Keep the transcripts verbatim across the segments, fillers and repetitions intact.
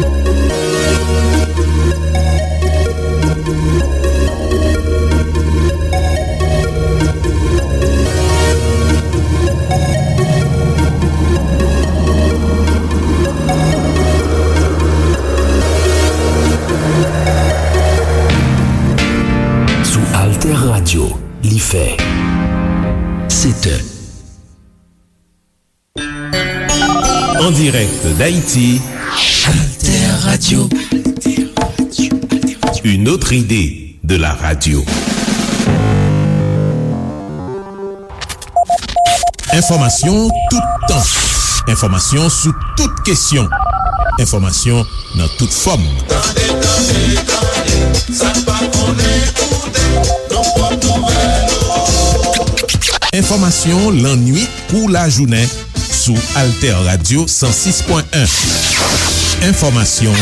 Sou Alter Radio, li fè sèt è. En direct d'Haïti, Alter Radio. Une autre idée de la radio. Enfòmasyon tout tan. Enfòmasyon sou tout kesyon. Enfòmasyon nan tout fòm. Tande, tande, tande, sa n pa konnen koute, nan pòt nouvèl ou. Enfòmasyon lannwit kou lajounen sou Alter Radio san sis pwen en. Enfòmasyon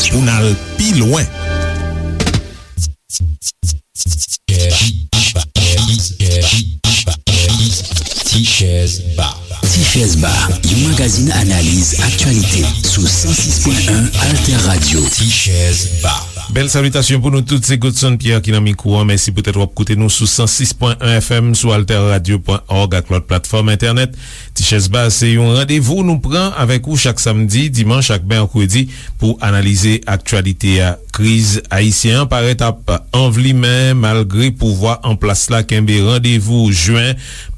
pou n al pi lwen. Ti Chèz Ba. Ti Chèz Ba, yon magazin analiz aktyalite sou san sis pwen en Alter Radio. Ti Chèz Ba. Bèl salitasyon pou nou tout, se Godson Pierre ki nan mikwo an. Mèsi poutèt w ap koute nou sou san sis pwen en F M, sou alter radio pwen org ak lòt platfòm entènèt. Ti Chèz Ba se yon randevou nou pran avèk ou chak samdi, dimanch ak mèkredi pou analize aktyalite a. Kriz ayisyen an parèt ap anvlimen malgre pouvwa an plas la kenbe randevou jen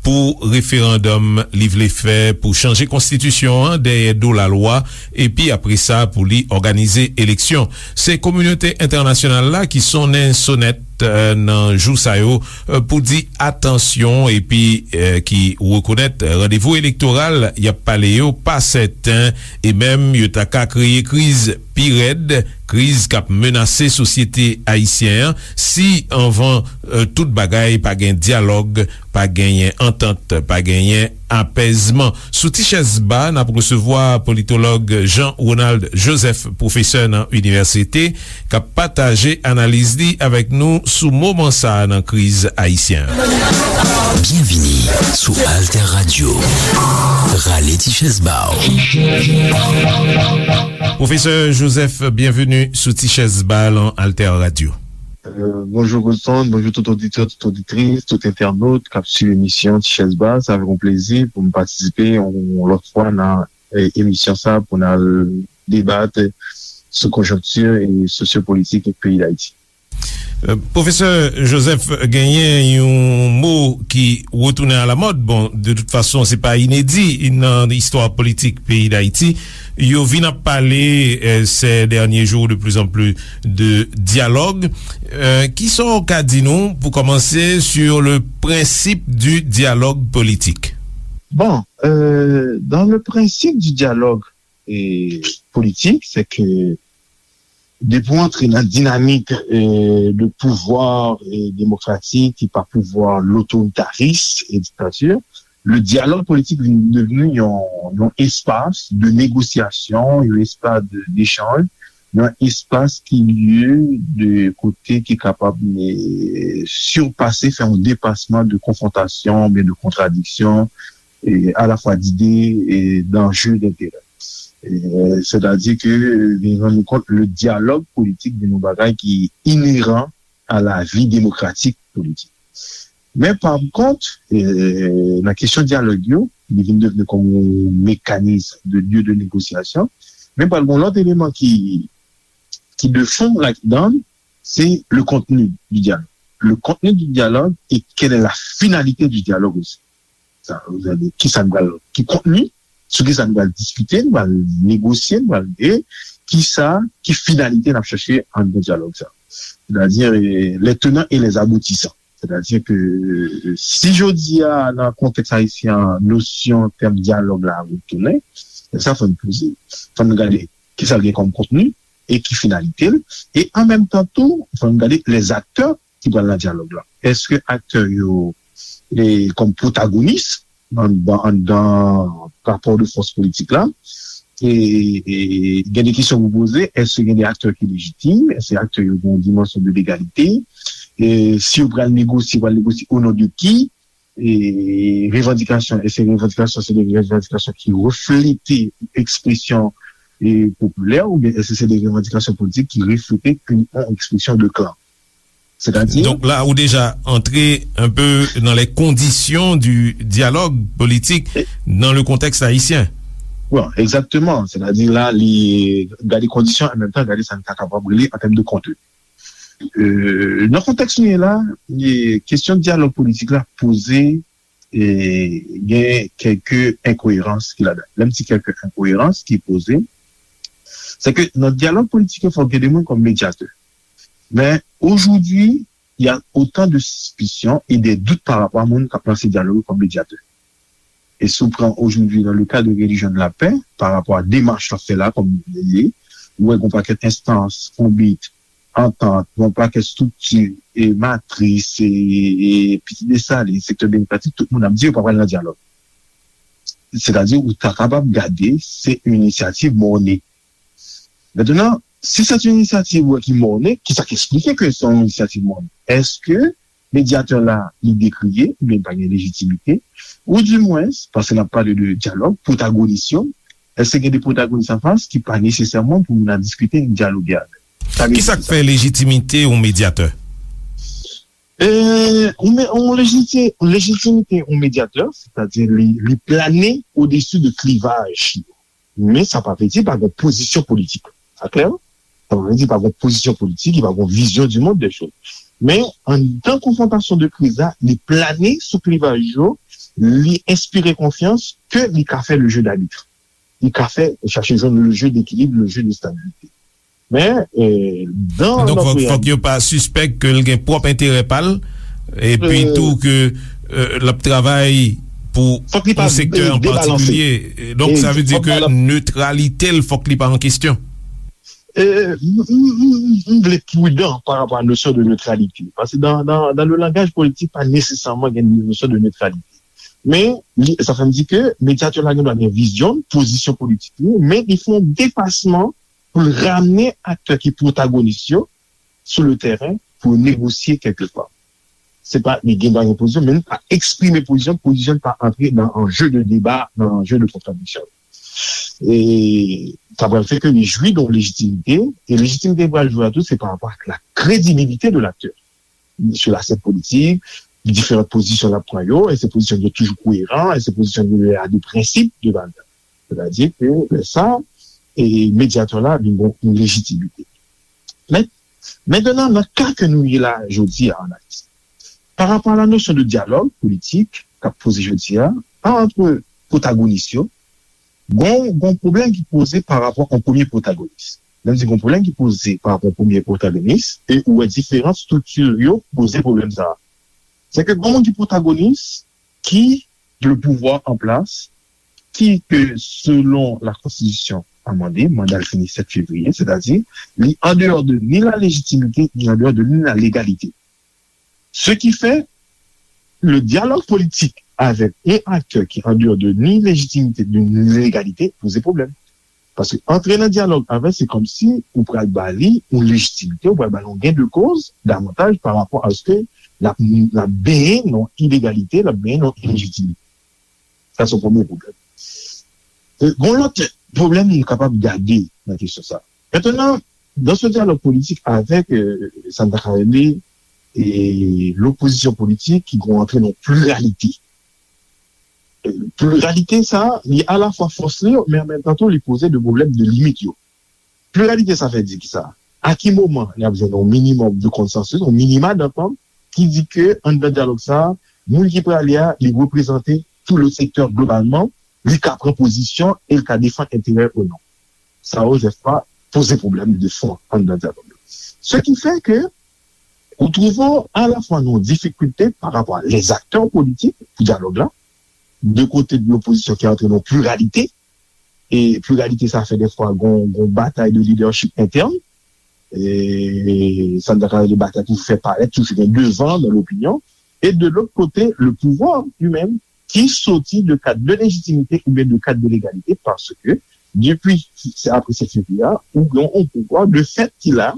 pou referandòm li vle fè pou chanje konstitisyon an dèyè do lalwa, epi apre sa pou li òganize eleksyon. Se kominote entènasyonal la ki sonnen sonèt, eh, nan jou sa yo, eh, pou di atansyon epi, eh, ki rekonèt randevou elektoral y ap pale yo pa sèten e menm yo ta ka kreye kriz pi rèd, kriz k ap menase sosyete ayisyen an si anvan, eh, tout bagay pa gen dyalòg, pa genyen antant, pa genyen apèzman. Sou Ti Chèz Ba, n ap resevwa politològ Jean Ronald Joseph, pwofesè nan inivèsite, k ap pataje analiz li avèk nou sou moman sa a nan kriz ayisyen an. Byenvini sou Alter Radio. Rale ti chèz ba w. Pwofesè Joseph, byenveni sou Ti Chèz Ba nan Alter Radio. Euh, bonjou Godson, bonjou tout oditè, tout oditris, tout entènot k ap swiv emisyon Ti Chèz Ba. Sa fè yon plezi pou m patisipe yon lòt fwa nan, eh, emisyon sa pou n al debat sou konjonkti e sosyopolitik peyi Dayiti. Euh, pwofesè Joseph, genyen yon mo ki retounen alamòd. Bon, de tout fason, se pa inedi nan istwa politik peyi Dayiti. Yo vin ap pale, euh, ces derniers jours de plus en plus de dialogue. Euh, kisa w ka di nou pou kòmanse sur le principe du dialogue politique? Bon, euh, dans le principe du dialogue, euh, politique, c'est que depi w antre nan dinamik, euh, de pouvwa, euh, demokratik ki pa pouvwa lotoritaris e diktati, le dialogue politique vin devni yon, yon espas de negosyasyon, yon espas de, d'échanj, yon espas ki lye de kote ki kapab, eh, sipase, fè yon depasman de konfwontasyon, oubyen de kontradiksyon, eh, alafwa d'ide, eh, d'anje, d'enterè. Eh, sètadi ke, eh, vin rann nou kont, le dialogue politique vin yon bagay ki ineran a la vie démocratique politique. Men pa kont, eh, nan kesyon dyalòg yo, li vin devni kòm yon mekanis de lye de negosyasyon. Men pral gen yon lòt eleman ki, ki de fon ladan, c'est le contenu du dialogue. Le contenu du dialogue et quelle est la finalité du dialogue aussi. Sa, kisa nou pral, ki kontni, sou kisa nou pral diskite, nou pral negosye, nou pral, e kisa, ki finalite n ap chache anndan dyalòg sa. Sètadi, eh, les tenants et les aboutissants. Sètadi ke, eh, si jodi a, nan kontèks ayisyen an, nosyon tèm dyalòg la retounen, sa fò n poze. Fò n gade kisa l gen kòm kontni e ki finalite l. E an menm tan tou, fò n gade les acteurs ki pral nan dyalòg la. Èske aktè yo, e, kòm pwotagonis anndan, anndan rapò de fòs politik la? E, e, gen de kesyon pou poze, èske gen de aktè ki lejitim? Èske aktè yo gen yon dimansyon de legalite? E, si yo pral negosye, pral negosye o non de ki? E, revandikasyon, èske revandikasyon se de revandikasyon ki reflete ekspresyon, e popilè, oubyen èske se de revandikasyon politik ki reflete yon ekspresyon de klan? Sètadi, donk la, ou deja antre un peu dans les conditions du dialogue politique dans le contexte haïtien. Bon, egzakteman. Sètadi la, li gade kondisyon, an menm tan, gade sa n ta kapab rele an tèm de kontni. Euh, nan kontèks nou ye la, e, kesyon dyalòg politik la poze, e, gen kèlke enkoyerans ki ladan. Lè m di kèlke enkoyerans ki poze, se ke nan dyalòg politik yo, fòk gen de moun kòm medyatè. Men, aujourd'hui, il y a autant de suspicions et des doutes par rapport à moun k ap lanse dyalòg kòm medyatè. E si w pran aujourd'hui dans le cadre de Religion de la Paix, par rapport à demach w ap fè la, kòm li ye, ou wè gon pakèt enstans, konbit, antant, gon pakèt estrikti, e matris, e, e Pitit Desalin, sektè demokratik, tout moun ap di yo pa pral nan dyalòg. Sètadi, ou ta kapab gade, se yon inisyativ mòne. Mentnan, si se yon inisyativ, wè, ki mòne, ki sa k eksplike ke se yon inisyativ mòne? Èske medyatè la, li dekriye, oubyen li pa gen lejitimite, ou dimwens, paske n ap pale de dyalòg, pwotagonis yo, èske gen de pwotagonis anfas ki pa nesesèman pou moun ap diskite, dyaloge avè l? Sa vle di ki sa k fè lejitimite yon medyatè? E, yon me-, yon lejiti-, lejitimite yon medyatè, sètadi li, li plane odesi de klivaj yo. Men sa pa vle di pa gen pozisyon politik. Sa klè? Sa pa vle di pa gen pozisyon politik, li pa gen vizyon du monde des choses. Men, anndan konfwontasyon de kriz la, li plane sou klivaj yo, li enspire konfyans ke li ka fè le jeu d'arbitre. Li ka fè, chache jwenn le jeu d'équilibre, le jeu de stabilité. Men, e, dan... Donk, fòk, fòk yo pa sispèk ke l gen pwòp enterè pa l, epi tou ke, e, l ap travay pou yon sektè an patikilye. Donk, sa vle di ke netralite l, fòk li pa an kesyon. E, m, m, m, m vle pridan pa rapò a nosyon de netralite. Paske dan, dan, dan le langaj politik, pa nesesèman gen nosyon de netralite. Men, li, sa fè m di ke medyatè la gen dwa gen vizyon, pozisyon politik li, men li fè yon depasman pou l ramne aktè ki pwotagonis yo sou le tèren pou yo negosye kèlkeswa. Se pa li gen dwa gen pozisyon, men li pa eksprime pozisyon, pozisyon pa antre nan anje de deba, nan anje de kontradiksyon. E sa pral fè ke li jwi de yon lejitimite, e lejitimite li pral jwi a tou, se pa rapò ak la kredibilite de laktè sou lasèn politik, diferan pozisyon l ap pran yo, èske pozisyon yo toujou koyeran, èske pozisyon yo a de prensip, de valè. Sètadi ke lè sa, e medyatè la vin gen yon lejitimite. Men, mentnan, nan ka ke nou ye la jodi a an Ayiti, pa rapò a la nosyon de dyalòg politik k ap poze jodi a, ant pwotagonis yo, gon, gon pwoblèm ki poze pa rapò a yon premye pwotagonis. Lè m di gon pwoblèm ki poze pa rapò a yon premye pwotagonis, e ou wè diferan estrikti yo poze pwoblèm sa a. Se ke gon moun ki pwotagonis, ki le pouvwa an plas, ki ke selon la konstitisyon amande, manda l fini sèt fevriye, sètadi li an deyò de ni la lejitimite, ni an deyò de ni la legalite. Ce qui fait, le dialogue politique avec un acteur qui en dehors de ni légitimité, de ni légalité, poze pwoblèm. Paske antre nan dyalòg avè l, se kòmsi ou pral ba li yon lejitimite, ou pral ba li yon gain de cause davantaj pa rapò a se ke l ap, l ap benyen nan ilegalite, l ap benyen nan ilejitimite. Sa se yon premye pwoblèm. E, gon lòt pwoblèm nou kapab gade nan kesyon sa. Mentnan, dans ce dialogue politique avec, euh, sa n ta ka rele, e, lopozisyon politik ki gon antre nan pliralite. E, pliralite sa, li alafwa fòs li, men an menm tan tou, li poze de pwoblèm de limit yo. Pliralite sa fè di ki sa? A ki moman n ap jwenn yon minimòm de konsansis, yon minima dantant ki di ke anndan dyalòg sa, moun ki prale a, li reprezante tout le sektè globalman, li ka pran pozisyon e li ka defann enterè ou non. Sa yo, dèfwa, poze pwoblèm de fon anndan dyalòg yo. Ce qui fait que ou twouve w alafwa nan yon difikilte pa rapò a les acteurs politiques pou dyalòg la, de kote de lopozisyon ki antre nan pliralite, e pliralite sa fè dèfwa gon, gon batay de lidèchip entèn, e sa n ta ka rele batay pou fè parèt, toujou gen devan nan lopinyon, e de lòt kote, le pouvwa li menm, ki soti de kad de lejitimite oubyen de kad de legalite, paske depi, se apre sèt fevriye a, ou gen yon pouvwa de fèt ki la,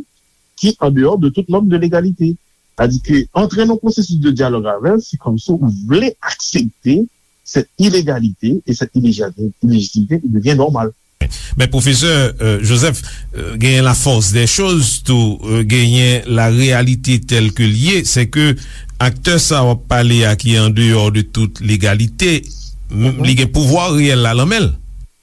ki an deyò de tout nòm de legalite. Sètadi ke antre nan pwosesis de dyalòg avè l, se kòmsi ou vle aksepte sèt ilegalite e sèt ilejitimite ki devyen nòmal. Men pwofesè, euh, Joseph, euh, genyen la force des choses tou, euh, genyen la réalité telle que l ye, c'est que aktè sa w ap pale a ki andeyò de tout legalite, m- li gen pouvwa reyèl la nan men l.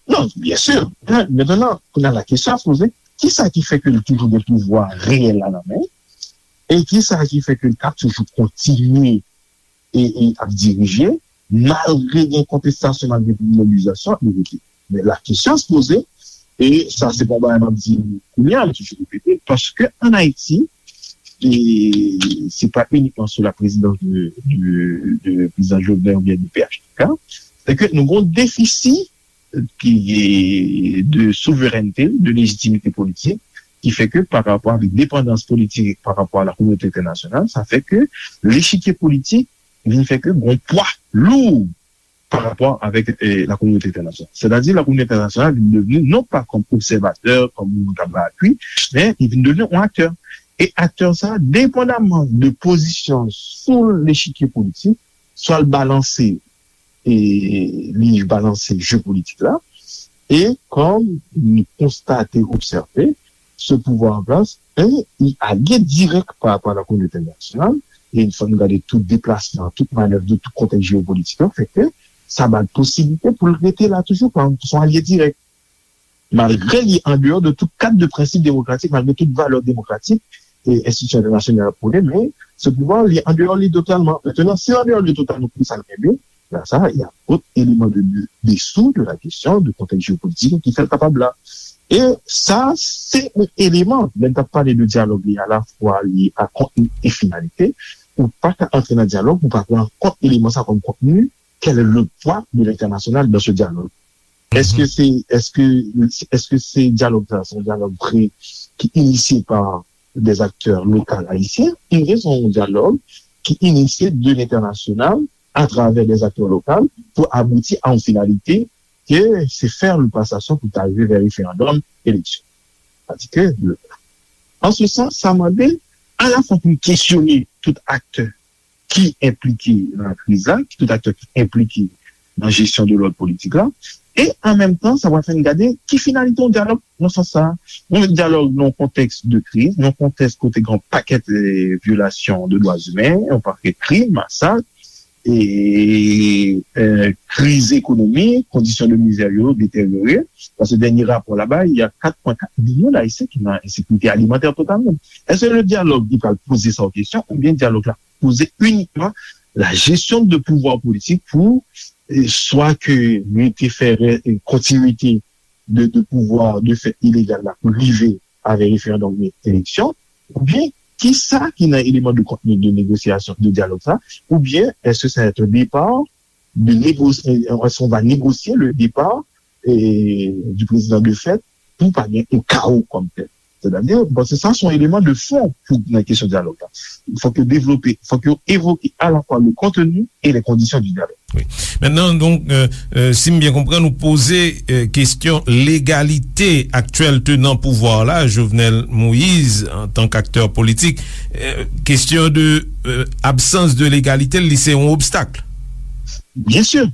Non, byen si. Mentnan, kounye a la kesyon ap poze, kisa ki fè ke l toujou gen pouvwa reyèl la nan men l? E kisa ki fè ke l t ap toujou kontinye e, e ap dirije, malgre gen kontestasyon, malgre gen mobilizasyon, li rete? Men la kesyon se poze, e sa se pa yon bagay m ap di kounye a, m toujou repete, paske ann Ayiti, e se pa inikman sou la présidence de, de, de président Jovenel oubyen de P H T K, se ke nou gen yon defisi ki de souverènte, de lejitimite politik, ki fè ke pa rapò avèk depandans politik pa rapò a la kominote entènasyonal, sa fè ke lechikye politik vin fè ke gon pwa lou pa rapò avèk eh, la kominote entènasyonal. Sètadi la kominote entènasyonal vin devni non pa kòm obsèvatè, kòm moun k ap bay apui, men li vin devni yon aktè. E aktè sa, depandaman de pozisyon sou lechikye politik, swa l balanse e li balanse je politik la. E kòm nou konstate, obsève, ce pouvoir en place est alye dirèk pa rapò a la kominote entènasyonal. E fò nou gade tout deplasman, tout manèv de tout kontèks jeyopolitik yo, fè ke sa ba l posiblite pou l rete la toujou kòm son alye dirèk. Malgre li andeyò de tout kad de prensip demokratik, malgre tout valè demokratik e enstitisyon entènasyonal ap pwone, men ce pouvoir li andeyò li totalman. Mentnan, si l andeyò li totalman, pou sa l kenbe, la sa, y a dòt eleman de, de, dessous de la kesyon de kontèks jeyopolitik ki fè l kapab la. E sa, se yon eleman, lè n t ap pale de dyalòg li, alafwa li a kontni e finalite, ou pa ka antre nan dyalòg, ou pa pran kont eleman sa kòm kontni, quel est le poids de l'international dans ce dialogue? Est-ce que c'est, est-ce que, est-ce que c'est dialogue ça, c'est un dialogue vrai qui est initié par des acteurs locaux haïtiens, ou bien c'est un dialogue qui est initié de l'international à travers des acteurs locaux pour aboutir à une finalité que c'est faire le passation pour arriver vers référendum, élection. Sètadi ke, an se sans, sa mande alafwa pou n kesyone tout aktè ki enplike nan kriz la, ki tout aktè ki enplike nan jesyon de lòd politik la, e an menm tan, sa pral fè n gade ki finalite yon dyalòg nan sans sa. Yon dyalòg nan yon kontèks de kriz, nan yon kontèks kote gen yon pakèt eh, vyolasyon de dwa imen, yon pakèt krim, masak, e, eh, kriz ekonomik, kondisyon de mizè yo deteryore. Paske dènye rapò la bay, il y a quatre point quatre millions d'Haïtiens qui sont en insécurité alimentaire totale. Est-ce que le dialogue li pral poze sa an kesyon, oubyen dyalòg la poze inikman la gestion de pouvoir politik pou eh, swa ke nou te fè eh, kontinite de, de pouvwa de fèt ilegal la pou rive avèk referandòm e eleksyon, oubyen kisa ki nan eleman de kontni de negosyasyon, de dyalòg sa, oubyen èske sa va être un départ de négocier, est-ce qu'on va négocier le départ eh, du président de fèt pou pa gen yon kawo kòm tèl. Sètadi, bon, se sa se yon eleman de fon pou nan kesyon dyalòg la. Fòk yo devlope, fòk yo evoke alafwa le contenu et les conditions du dialogue. Wi. Mentnan, donk, euh, euh, si m byen konprann, ou poze euh, kesyon legalite aktyèl tenan pouvwa la, Jovenel Moïse, antank aktè politik. Euh, kesyon de euh, absans de legalite, li se yon obstak. Byen si.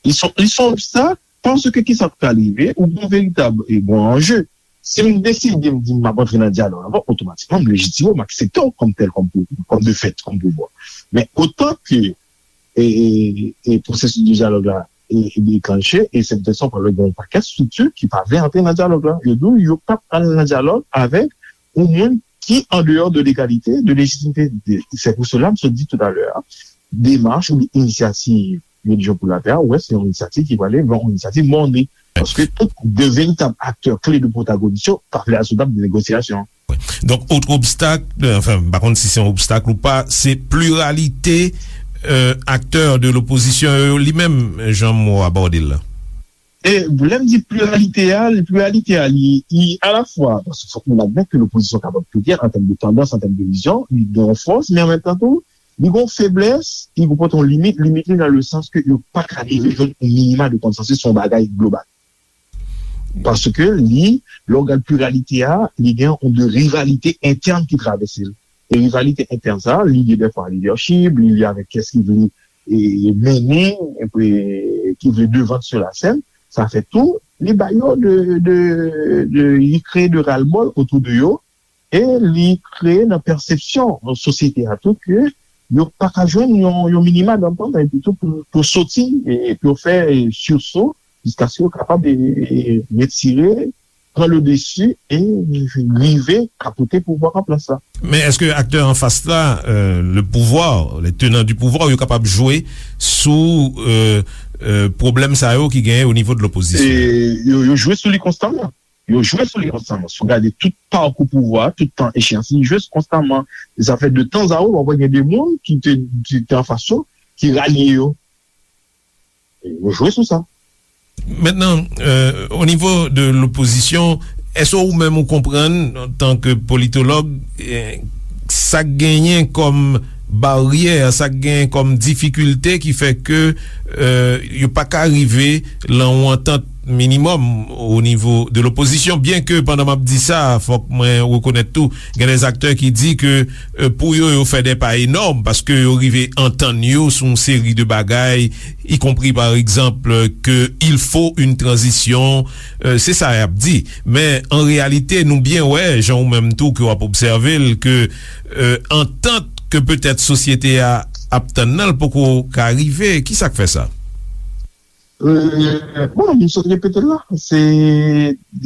Li se yon obstak, paske kisa k pral rive, ou gen yon veritab e gen yon anje. Si m deside m di m ap antre nan dyalòg avè w, otomatikman m lejitime w, m aksepte w kòm tèl, kòm, kòm de fèt, kòm pouvwa. Men otan ke e, e, e pwosesis de dyalòg la e, e deklanche, e se poutèt sa w pral wè gen yon pakèt estrikti ki pa vle antre nan dyalòg la. Yo di w yo p ap al nan dyalòg avèk yon moun ki andeyò de legalite, de lejitimite. Se pou sela m sot di toutalè a, demach oubyen inisyativ Religion pour la Paix a, ou wè, se yon inisyativ ki prale vè yon inisyativ mòne. Paske tout de veritab aktè kle de pwotagonis yo pa vle al sou tab de negosyasyon. Donk, otre obstak, euh, anfen, m pa konn si se yon obstak ou pa, se pliralite euh, aktè de lopozisyon yo li menm, jan m abòde l la. E lè m di pliralite a, pliralite a, li, li alafwa, paske fòk nou admèt ke lopozisyon kapab pliryèl an tèm de tandans, an tèm de vizyon, li gen yon fòs, men an menm tan tou, li gen yon feblès, li konpòte yon limit, limit li nan le sans ke yo pa ka rive jwenn yon minima de konsansis sou yon bagay global. Paske li, lè w gad pliralite a, li gen yon de rivalite entèn ki travèse l. E rivalite entèn sa, li lye dèfwa a lidèchip, li lye avèk kiyès ki vle e, mennen, e, ki vle devan sou lasèn. Sa fè tou, li ba yo de, de, de, li kreye de ras-le-bol otou de yo, e li kreye nan pèsepsyon sosyete a tou ke yo pa ka jwenn yon, yon minima d'entente, epi tou pou, pou soti, e pou yo fè, e, sursaut, jiskaske yo kapab, e, e, retire, pran le dessus e rive kapote pouvwa an plas la. Men èske aktè anfas la, euh, le pouvoir, les tenants du pouvoir, yo kapab jwe sou, euh, euh, pwoblèm sa yo ki genyen o nivo de lopozisyon? E yo, yo jwe sou li konstaman. Yo jwe sou li konstaman. Si w gade tout pakou pouvwa, tout tan echeyans, li jwe konstaman. E sa fè de tan a ou, w ap wè gen de moun ki te, ki te anfas yo, ki ralye yo. Yo jwe sou sa. Mentnan, euh, o nivo de lopozisyon, èske ou menm ou konprann, antanke politològ, eh, sa k genyen kòm baryè, sa k genyen kòm difikilte ki fè ke, euh, yo pa ka rive lan yon antant minimòm o nivo de lopozisyon? Byen ke pandan m ap di sa, fòk mwen rekonèt tou, gen de aktè ki di ke, euh, pou yo, yo fè de pa enòm, paske yo rive antann yo sou yon seri de bagay, y compris, par exemple, que il faut une transition, euh, se sa y ap di. Men, an reyalite, nou byen wè, jan ou menm tou ke w ap obsève l, ke, euh, antant ke petèt sosyete a ap tann nan, l poko ka rive. Ki sa k fè sa? Euh, bon, m sot repete l la. Se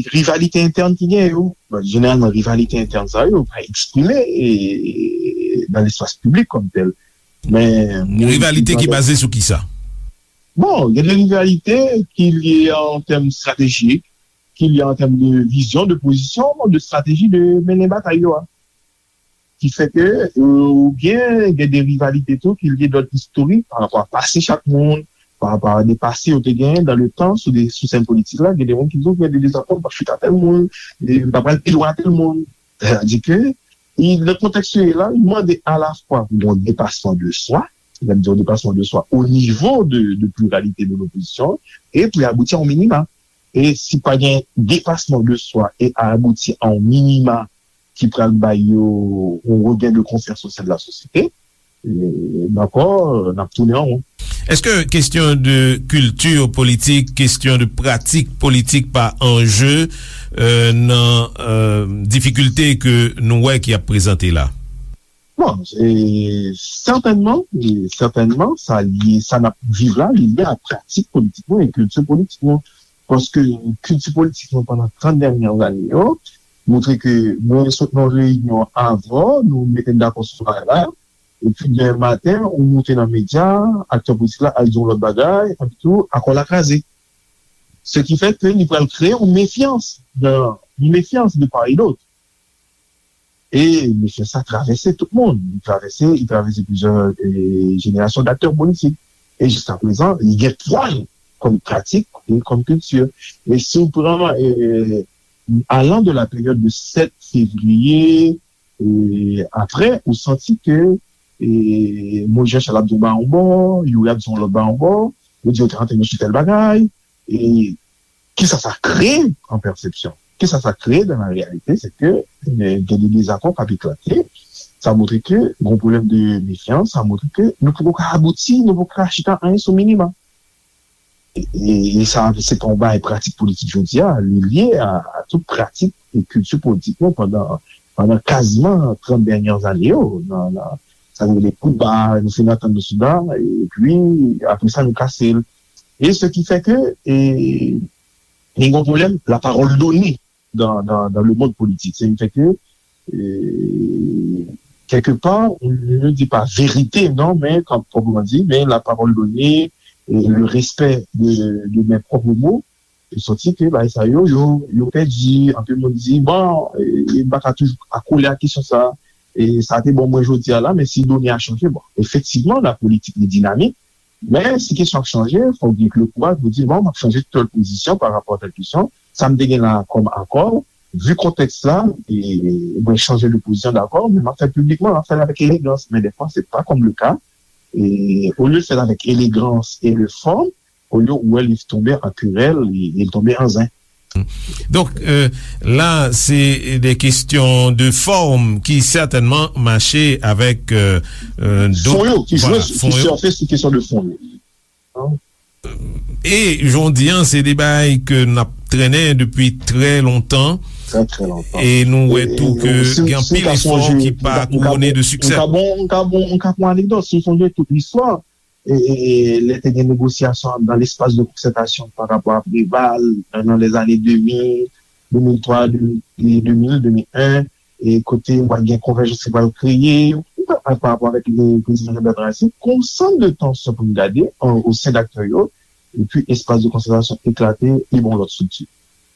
rivalite entèn ki gen yo. Bon, jeneralman, rivalite entèn sa yo pa eksprime, e, nan lespas piblik kòm tèl. Men, rivalite ki baze sou ki sa? Bon, gen de rivalite ki lye an tèm estratejik, ki lye an tèm de vizyon, de pozisyon, de estrateji de mennen batay yo a. Ki fè ke, euh, oubyen gen de rivalite tou ki lye dòd istorik pa rapò a pase chak moun, pa rapò a de pase yo te genyen dan le tan sou de, sou sèn politik la, gen de moun ki di w gen de dezakò, m p ap chita tèl moun, e m pa pral pi lwen a tèl moun. Sètadi ke, i, nan kontèks yo ye la, li mande alafwa pou yon depasman de swa, lè m di yon depasman de swa, o nivo de, de pliralite de lopozisyon, e pou y abouti a yon minima. E si pa gen depasman de swa e abouti a yon minima ki pral bay yo yon regen de konfyans o sen de la sosyete, e, dakò, n ap tounen an won. Èske kesyon de kilti politik, kesyon de pratik politik pa anje, euh, nan, euh, difikilte ke nou wè ki ap prezante la? Bon, e, sètènman, e, sètènman, sa lye, sa n ap viv la, li lye a pratik politik nou e kilti politik nou. Paske kilti politik nou pandan trant dènye ane yo montre ke mwen sot nan reyinyon avè w, nou mete n dakò sou bagay la, epi demen maten, ou moute nan medya, aktè politik la al di yon lòt bagay, epi tou, akò la kraze. Se ki fè ke li pral kreye yon mefyans, nan, yon mefyans de part et d'autre. E mesye sa travèse tout moun. Li travèse, li travèse plizyè, e, jenerasyon d'aktè politik. E jiskaprezan, li gen pwa l kòm pratik e kòm kilti. E si w pran, e, alan de la peryòd de sèt fevriye, e, apre, ou santi ke, e, Moyiz Jan Chal ap di yon bagay yon bò, Youri ap di yon lòt bagay yon bò, yo di yo te antre nan sou tèl bagay, e kisa sa kreye an pèsepsyon? Kisa sa kreye dan la reyalite? Se ke, e, gen de dezakò k ap eklate. Sa montre ke gen yon pwoblèm de mefyans, sa montre ke nou poko ka abouti, nou poko ka chita anyen sou minima. E, e, e sa, se pa yon bagay pratik politik jodi a, li lye a, a tout pratik e kilti politik nou pandan, pandan kaziman trant dènye ane yo, nan, nan, sa nou rele koudba, nou fin antann nou sou sa, epi apre sa nou kase l. E se ki fè ke, e, gen yon pwoblèm, la parole donnée dans, dans, dans le monde politique. Se ki fè ke, e, kèlkepa, nou di pa verite, non, men, kan, kòman di, men la parole donnée, e, le respect de, de mes propres mots, e santi ke bagay sa yo, yo, yo pèdi, anpil moun di, bon, e, e m pa ka toujou akole a kesyon sa, e sa te bon mwen jodi a la, men si done a chanje, bon, efektivman, la politik li dinamik, men si kesyon ap chanje, fòk gen le kouraj pou di, bon, m ap chanje tèl pozisyon pa rapò a tèl kesyon, sa m te gen la kòm akò, vi kontèks la, e mwen chanje de pozisyon, dakò, men m ap fè l piblikman, m ap fè l avèk elegans, men dèfwa, se pa kòm le ka, e olye l fè l avèk elegans e le fòm, olye ou wè li tonbe an kerèl, li, li tonbe an zen. Donk, euh, la, se de kesyon de fòm ki sètènman mache avèk, euh, euh, dòt, fon yo, ki jwe, ki sèfe sou kesyon de fon yo. E, jan w di an, se de bagay ke n ap trennen depi trè lontan. Trè, trè lontan. E nou wè tou ke gen anpil efò ki pa kouwone de siksè. M ka bon, m ka bon, m ka pran anekdòt. Si w sonje tout listwa, e, e, e, lè te gen negosyasyon dan lespas de konsètasyon pa rapò a Preval, nan lèzane de mil, de mil twa, de mil, de mil, de mil en, e kote w a gen konvèjans ki pral kreye, pa rapò avèk le prezidan Jean Bertrand Aristide, gon sann de tansyon pou n gade o sen d aktè yo, epi espas de konsètasyon eklate, li ba yon lòt estrikti.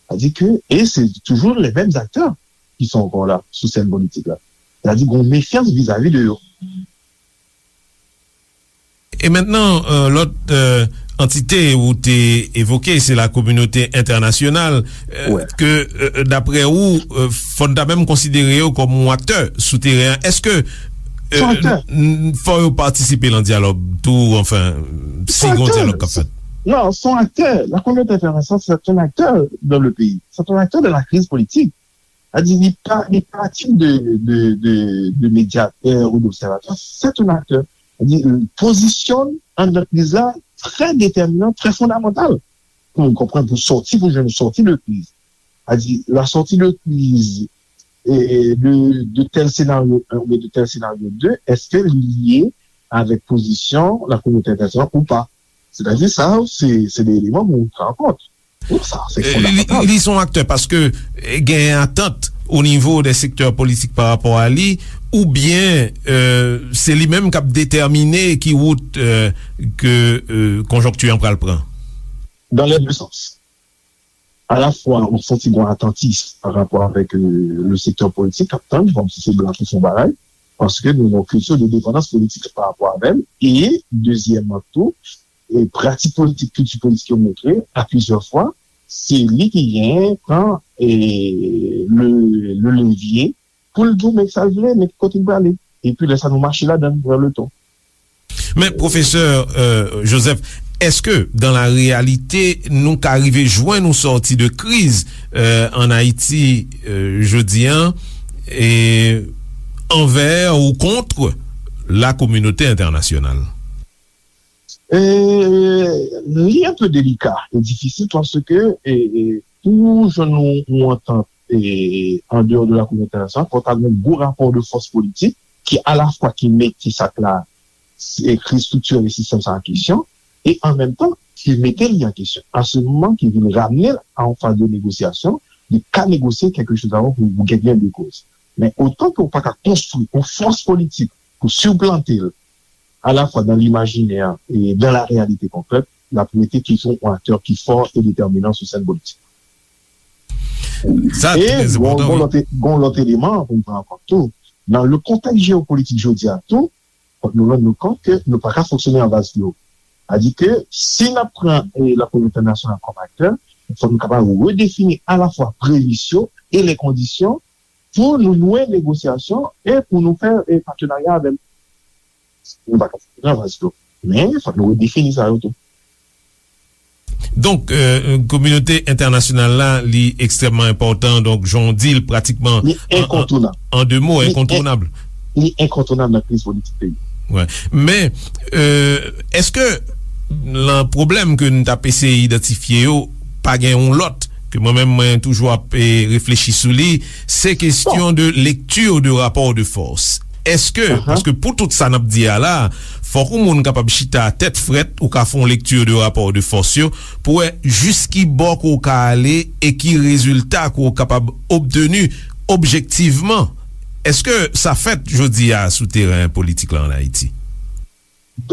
Sa di ke, e se toujou les mêmes acteurs ki sont encore là sou sèn politik la. Sa di gon mefyans vizavi de yo. E mentnan, lòt antite ou te evoke, se la kominote entènasyonal, ke, daprè ou, fò n ta menm konsidere yo kòm yon aktè sou teren an. Èske fò yo patisipe nan dyalòg tou, anfen, si gon dyalòg k ap fèt? Non, se yon aktè. La kominote entènasyonal, se yon aktè dans le pays. Se yon aktè dans la crise politique. Sa di, li pa, li pa tit de, de, de, de medyatè ou d'obsèvatè, se yon aktè. Sa di, pozisyon anndan kriz la trè detèminan, trè fondamantal pou nou konprann, pou sòti, pou jwenn sòti de kriz. Sa di, la sòti de kriz, e, de, de tèl senaryo en oubyen de tèl senaryo de, èske li lye avèk pozisyon la kominote entènasyonal ou pa? Sètadi, sa, se, se de eleman pou nou pran an kont. Li, li se yon aktè paske genyen atant o nivo de sektè politik pa rapò a li, oubyen se li menm k ap detèmine ki wout ke konjonkti an pral pran? Dans les deux sens. Alafwa, ou santi gen yon atantis pa rapò avèk le sektè politik k ap tann, kòmsi se blan ki fè yon bagay, paske nou gen yon kilti de depandans politik pa rapò avè l, e dezyèmman tou, e pratik politik, kilti politik yo montre, a plizyè fwa, se li ki genyen pran, e, le, le levye pou l di w men sa l vle, men ki kote l prale. Epi lè sa nou mache ladan l, pran le ton. Men, pwofesè, e, Joseph, èske, dans la réalité, nou ka rive jwenn yon sòti de kriz, e, ann Ayiti, e, jodi an, e, anvè ou kont la kominote entènasyonal? E, li enpe delika e difisil paske, e, e, pou jwenn yon, yon antant, e, andeyò de la kominote entènasyonal, fò ta gen yon gwo rapò de fòs politik ki alafwa ki mete sa k la, e, kriz estriktirèl e sistèm sa an kesyon, e an menm tan, ki mete li an kesyon. A se moman ki vin ramne l a yon faz de negosyasyon, li ka negosye kèlkechoz avan pou, pou gen gen de koz. Men otan ke w pa ka konstwi yon fòs politik pou siplante l, alafwa dans l'imaginaire et dans la réalité concrète, l ap rete toujou yon aktè ki fò e detèminan sou sèn politik. Sa trè enpòtan, wi. E gon, gon lòt, gon lòt eleman pou n pran an kont tou. Nan le kontèks jeyopolitik jodi a tou, fòk nou rann nou kont ke nou pa ka fonksyone an vaz klo. Sa di ke si n ap pran, e, la kominote entènasyonal kòm aktè, fòk nou kapab redefini alafwa premis yo e le kondisyon pou nou nwe negosyasyon e pou nou fè, e, patenarya avè l. Nou pa ka fonksyone an vaz klo. Men, fòk nou redefini sa yo tou. Donk, e, kominote entènasyonal la, li ekstrèmman enpòtan. Donk, jan w di l, pratikman, li an, an, enkontounab. An de mo, li en-, enkontounab. Li enkontounab nan kriz politik peyi. Wi. Men, e, èske nan pwoblèm ke n t ap eseye idantifye yo, pa gen yon lòt ke mwen menm, mwen toujou ap, e, reflechi sou li, se kesyon de lekti de rapò de fòs. Èske, paske pou tout sa n ap di a la, fòk yon moun kapab chita tèt frèt, ou ka fè yon lekti de rapò de fòs yo, pou wè jis ki bò ke w ka ale e ki rezilta ke w kapab obteni objektivman. Èske sa fèt jodi a sou teren politik la ann Ayiti?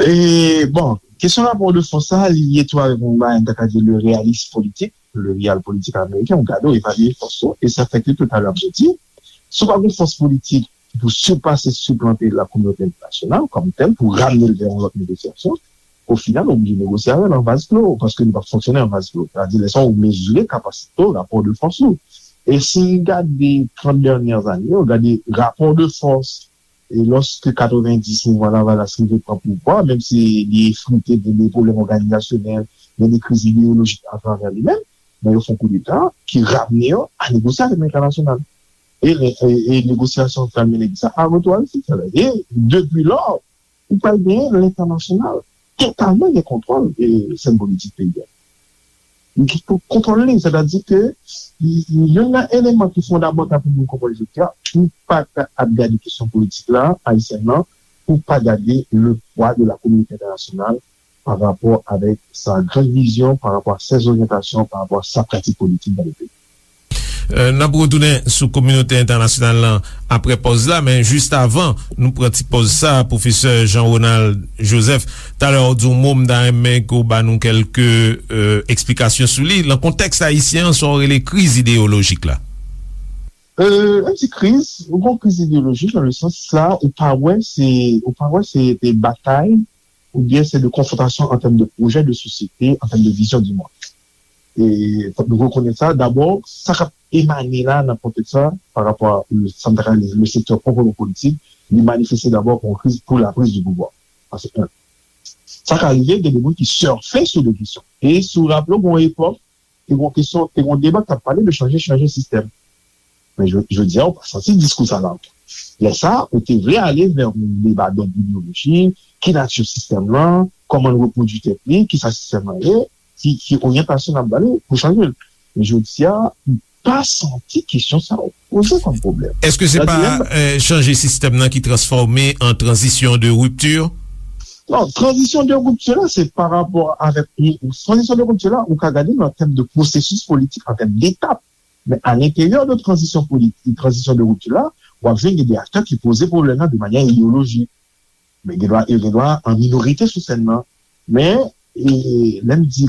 E, bon, kesyon rapò de fòs sa, li lye tou avèk yon bagay, m ta ka di, le réalisme politique, le realpolitik ameriken, ou gade, ou evalye fòs ou, e sa fè ke toutalè m te di, si w pa gen fòs politik pou sipase, siplante la kominote entènasyonal kòm tèl, pou ramne l vè yon lòt negosyasyon, o final, ou oblije negosye avè l an vaz klo, paske nou p ap fonksyone an vaz klo. Sa di, lè sa, ou mezire kapasite w, rapò de fòs ou. E si n gade trant dènyè zane yo, gade rapò de fòs, e lòske katrevenndis mouvman Lavalas rive pran pouvwa, menm si li efrite, gen de pwoblèm òganizasyonèl, gen de kriz ideyolojik atravè li menm, men yo fè yon koudeta ki ramne yo a negosye avèk entènasyonal. E, e, e negosyasyon k al mennen sa a retou a Ayiti. E depi lò, ou pral genyen lentènasyonal totalman gen kontwòl, e, sèn politik peyi a. Li gen pou kontwòl li, sètadi ke youn nan eleman ki fondamantal pou moun konprann jodi a, ou pa ka ap gade kesyon politik la, ayisyèn nan, ou pa gade le poids de la communauté internationale par rapport avec sa grande vision, par rapport à ses orientations, par rapport à sa pratique politique dans le pays. N ap retounen sou kominote entènasyonal lan apre pòz la, men jis avan nou pran ti pòz sa, pwofesè Jean Ronald Joseph, talè w di yon mo, m ta renmen ke w ba nou kèlke eksplikasyon sou li. Nan kontèks ayisyen an, sa w rele kriz ideyolojik la? Lè m di kriz, yon kriz ideyolojik nan le sans la, ou pa wè se, ou pa wè se de batay oubyen se de konfwontasyon an tèm de pwojè de sosyete, an tèm de vizyon di mond. E fòk nou rekonèt sa. Dabò, sa k ap emane la nan kontèks sa, pa rapò a sa m ta ka rele le sektè pwòpman politik, li manifeste dabò kon kriz pou la prise de pouvoir. Sa se en. Sa ka rive gen de moun ki sèfe sou de kesyon. E si w raple w, gen yon epòk, te gen yon kesyon, te gen yon deba k t ap pale de chanje, chanje sistèm. Men jodi a, ou pa santi diskou sa la ankò. Lè sa, ou te vle ale vè yon deba dòd ideyolojik, ki nati sistèm lan, kòman l repwodui tèt li, kisa sistèm lan ye, ki, ki oryantasyon n ap ba li pou chanje l. Men jodi a, m pa santi kesyon sa yo poze kòm pwoblèm. Èske se pa chanje sistèm nan ki transfòme an tranzisyon de ripti? Non, tranzisyon de ripti la, se pa rapò avèk tranzisyon de ripti la, ou ka gade nan tèm de pwosesis politik, an tèm detap. Men a lenteryè de tranzisyon politik, tranzisyon de ripti la, w ap jwenn gen de aktè ki poze pwoblèm nan de manyè ideyolojik. Men gen dwa, yo gen dwa an minorite sou sèn nan. Men e, lè m di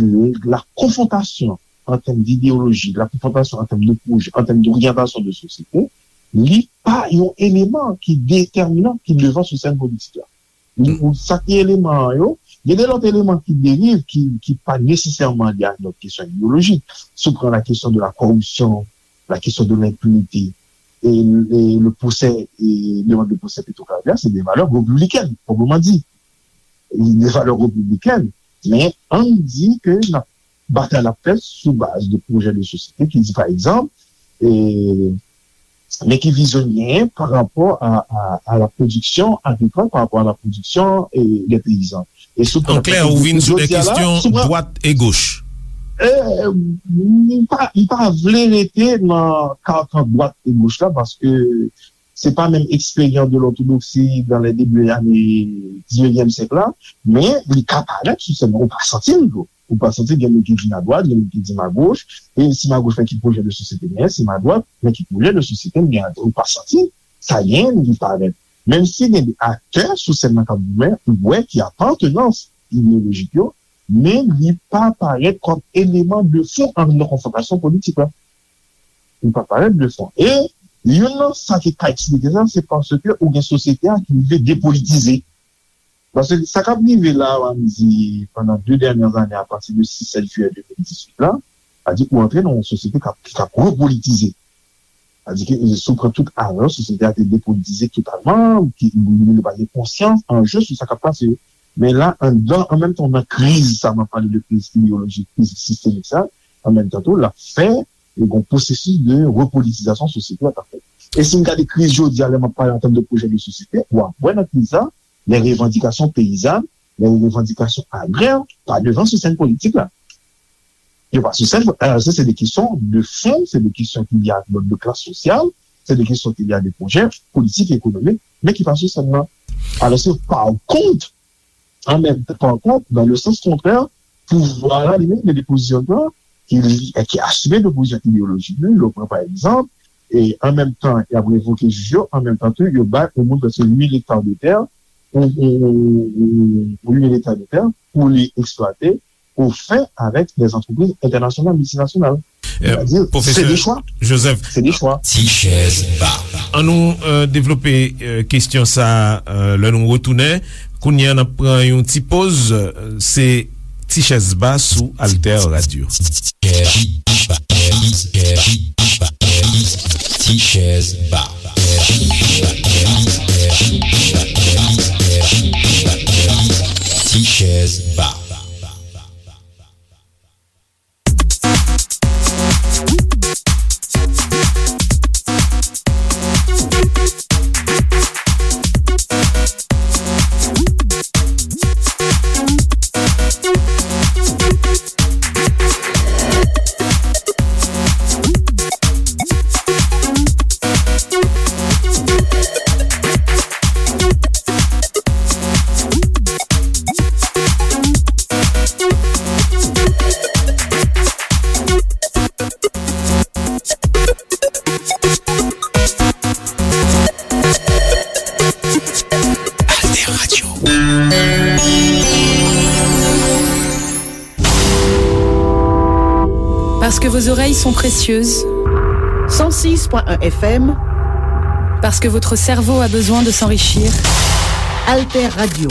la konfwontasyon an tèm dideyoloji, la konfwontasyon an tèm de pwojè, an tèm doryantasyon de sosyete, li pa yon eleman ki detèminan, ki devan sou sèn politik la. Ou sa ki eleman an yo, gen de lòt eleman ki derive, ki, ki pa nesesèman lye ak lòt kesyon ideyolojik. Si w pran la kesyon de la kòripsyon, la kesyon de lenpinite, e, e le pwosè, e demann de pwosè Petro Caribe, se de valè repiblikèn, pwòpman di. De valè repiblikèn. Men, ann di ke n ap batay l ap fèt sou baz de pwojè de sosyete ki di, pa egzanp, e, men ki vizyon l genyen pa rapò a, a, a la pwodiksyon agrikòl, pa rapò a la pwodiksyon e, de peyizan. E sou An klè, ou vin sou de kesyon dwat e goch. E, m pa, m pa vle rete nan karkan dwat e goch la, paske se pa menm eksperyans de lòtodoksi dans les débuts années dix-neuvième siècle la, men li ka parèt sou sèn nan, ou pa santi l tou. Ou pa santi gen moun ki di m adwat, gen moun ki di m agoch, e si m agoch, men ki pwojè de sosyete m genyen, si m adwat, men ki pwojè de sosyete m genyen, ou pa santi sa genyen, li parèt. Menm si gen de aktè sou sèn nan k ap goumen, ou wè ki apartenans ideyolojik yo, men li pa parèt kòm eleman de fon an nan konfwontasyon politik la. Li pa parèt de fon. E youn nan sa ki ka eksplike sa, se paske ou gen sosyete a ki rive depolitize. Paske sa k ap rive la, ann di, pandan de dènyè ane, apati de sis sèt jiyè de mil dizuit la, sa di ou antre nan yon sosyete k ap, ki t ap repolitize. Sa di ke si w pran tout avan, sosyete a te depolitize totalman, ki li pa gen konsyans, anje sou sa k ap pase yo. Men la, anndan, an menm tan, nan kriz sa, m ap pale de kriz ideyolojik, kriz sistemik sa, an menm tan tou, l ap fè yon pwosesis de repolitizasyon sosyete a k ap fèt. E si n gade kriz jodi a, lè m ap pale an tèm de pwojè de sosyete, w ap wè nan kriz sa, les revendications paysannes, les revendications agraires pa devan sou sèn politik la. Yo pa sou sèn, alò se de kesyon de fon, se de kesyon ki lye ak lòt de klas sosyal, se de kesyon ki lye ak de pwojè politik, ekonomik, men ki pa sou sèn nan. Alòske pa kont, an menm tan, pa kont, dans le sens contraire, pouvwa la li menm gen de pozisyon ki, ki asime de pozisyon ideyolojik li. Lè w pran pa egzanp, e an menm tan y ap revoke jij yo, an menm tan tou yo bay yon moun prèske uit mil ekta de tè, ou, ou, ou, ou uit mil ekta de tè pou li eksplwate au fin avec des entreprises internationales, multinationales. Sètadi, se de chwa. Joseph, se de chwa. Ti chèz ba. Ann nou devlope kesyon sa a lè nou retounen. Kounye a n ap pran yon ti poz. Se Ti chèz ba sou Alter Radio. Ti chèz ba. Ti chèz ba. Parce que vos oreilles sont précieuses. Cent six point un F M. Parce que votre cerveau a besoin de s'enrichir. Alter Radio.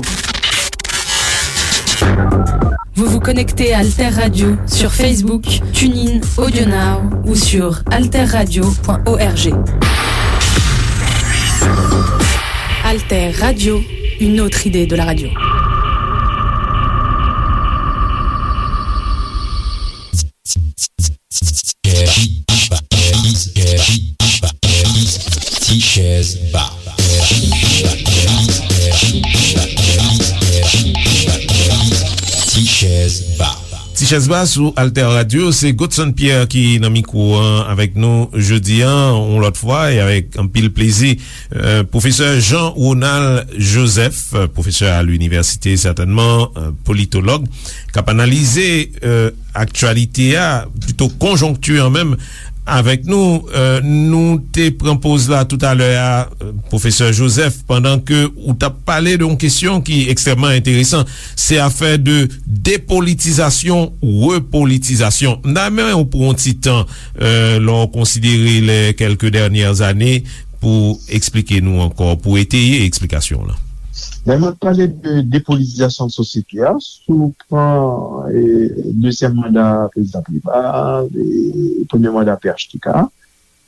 Vous vous connectez à Alter Radio sur Facebook, TuneIn, AudioNow ou sur alter radio point org. Alter Radio, une autre idée de la radio. Ti chèz ba. Ti chèz ba. Ti chèz ba sou Alter Radio, se Godson Pierre ki nan mikwo an avèk nou jodi an, yon lòt fwa, e avèk anpil plezi. Euh, pwofesè Jean Ronald Joseph, euh, pwofesè a linivèsite, sètènman, euh, politològ, k ap analize, euh, aktyalite a, pito konjonkti an menm, avèk nou. Euh, nou te pran poz la toutalè a, euh, pwofesè Joseph, pandan ke ou t ap pale de yon kesyon ki ekstrèmman enteresan, se afè de depolitizasyon, repolitizasyon. M ta renmen w pran yon ti tan, euh, lè w konsidere les quelques dernières années, pou eksplike nou ankò, pou eteye eksplikasyon w lan. Lè n ap pale de depolitizasyon sosyete a, si w pran, e, dezyèm manda prezidan Préval, e, premye manda P H T K,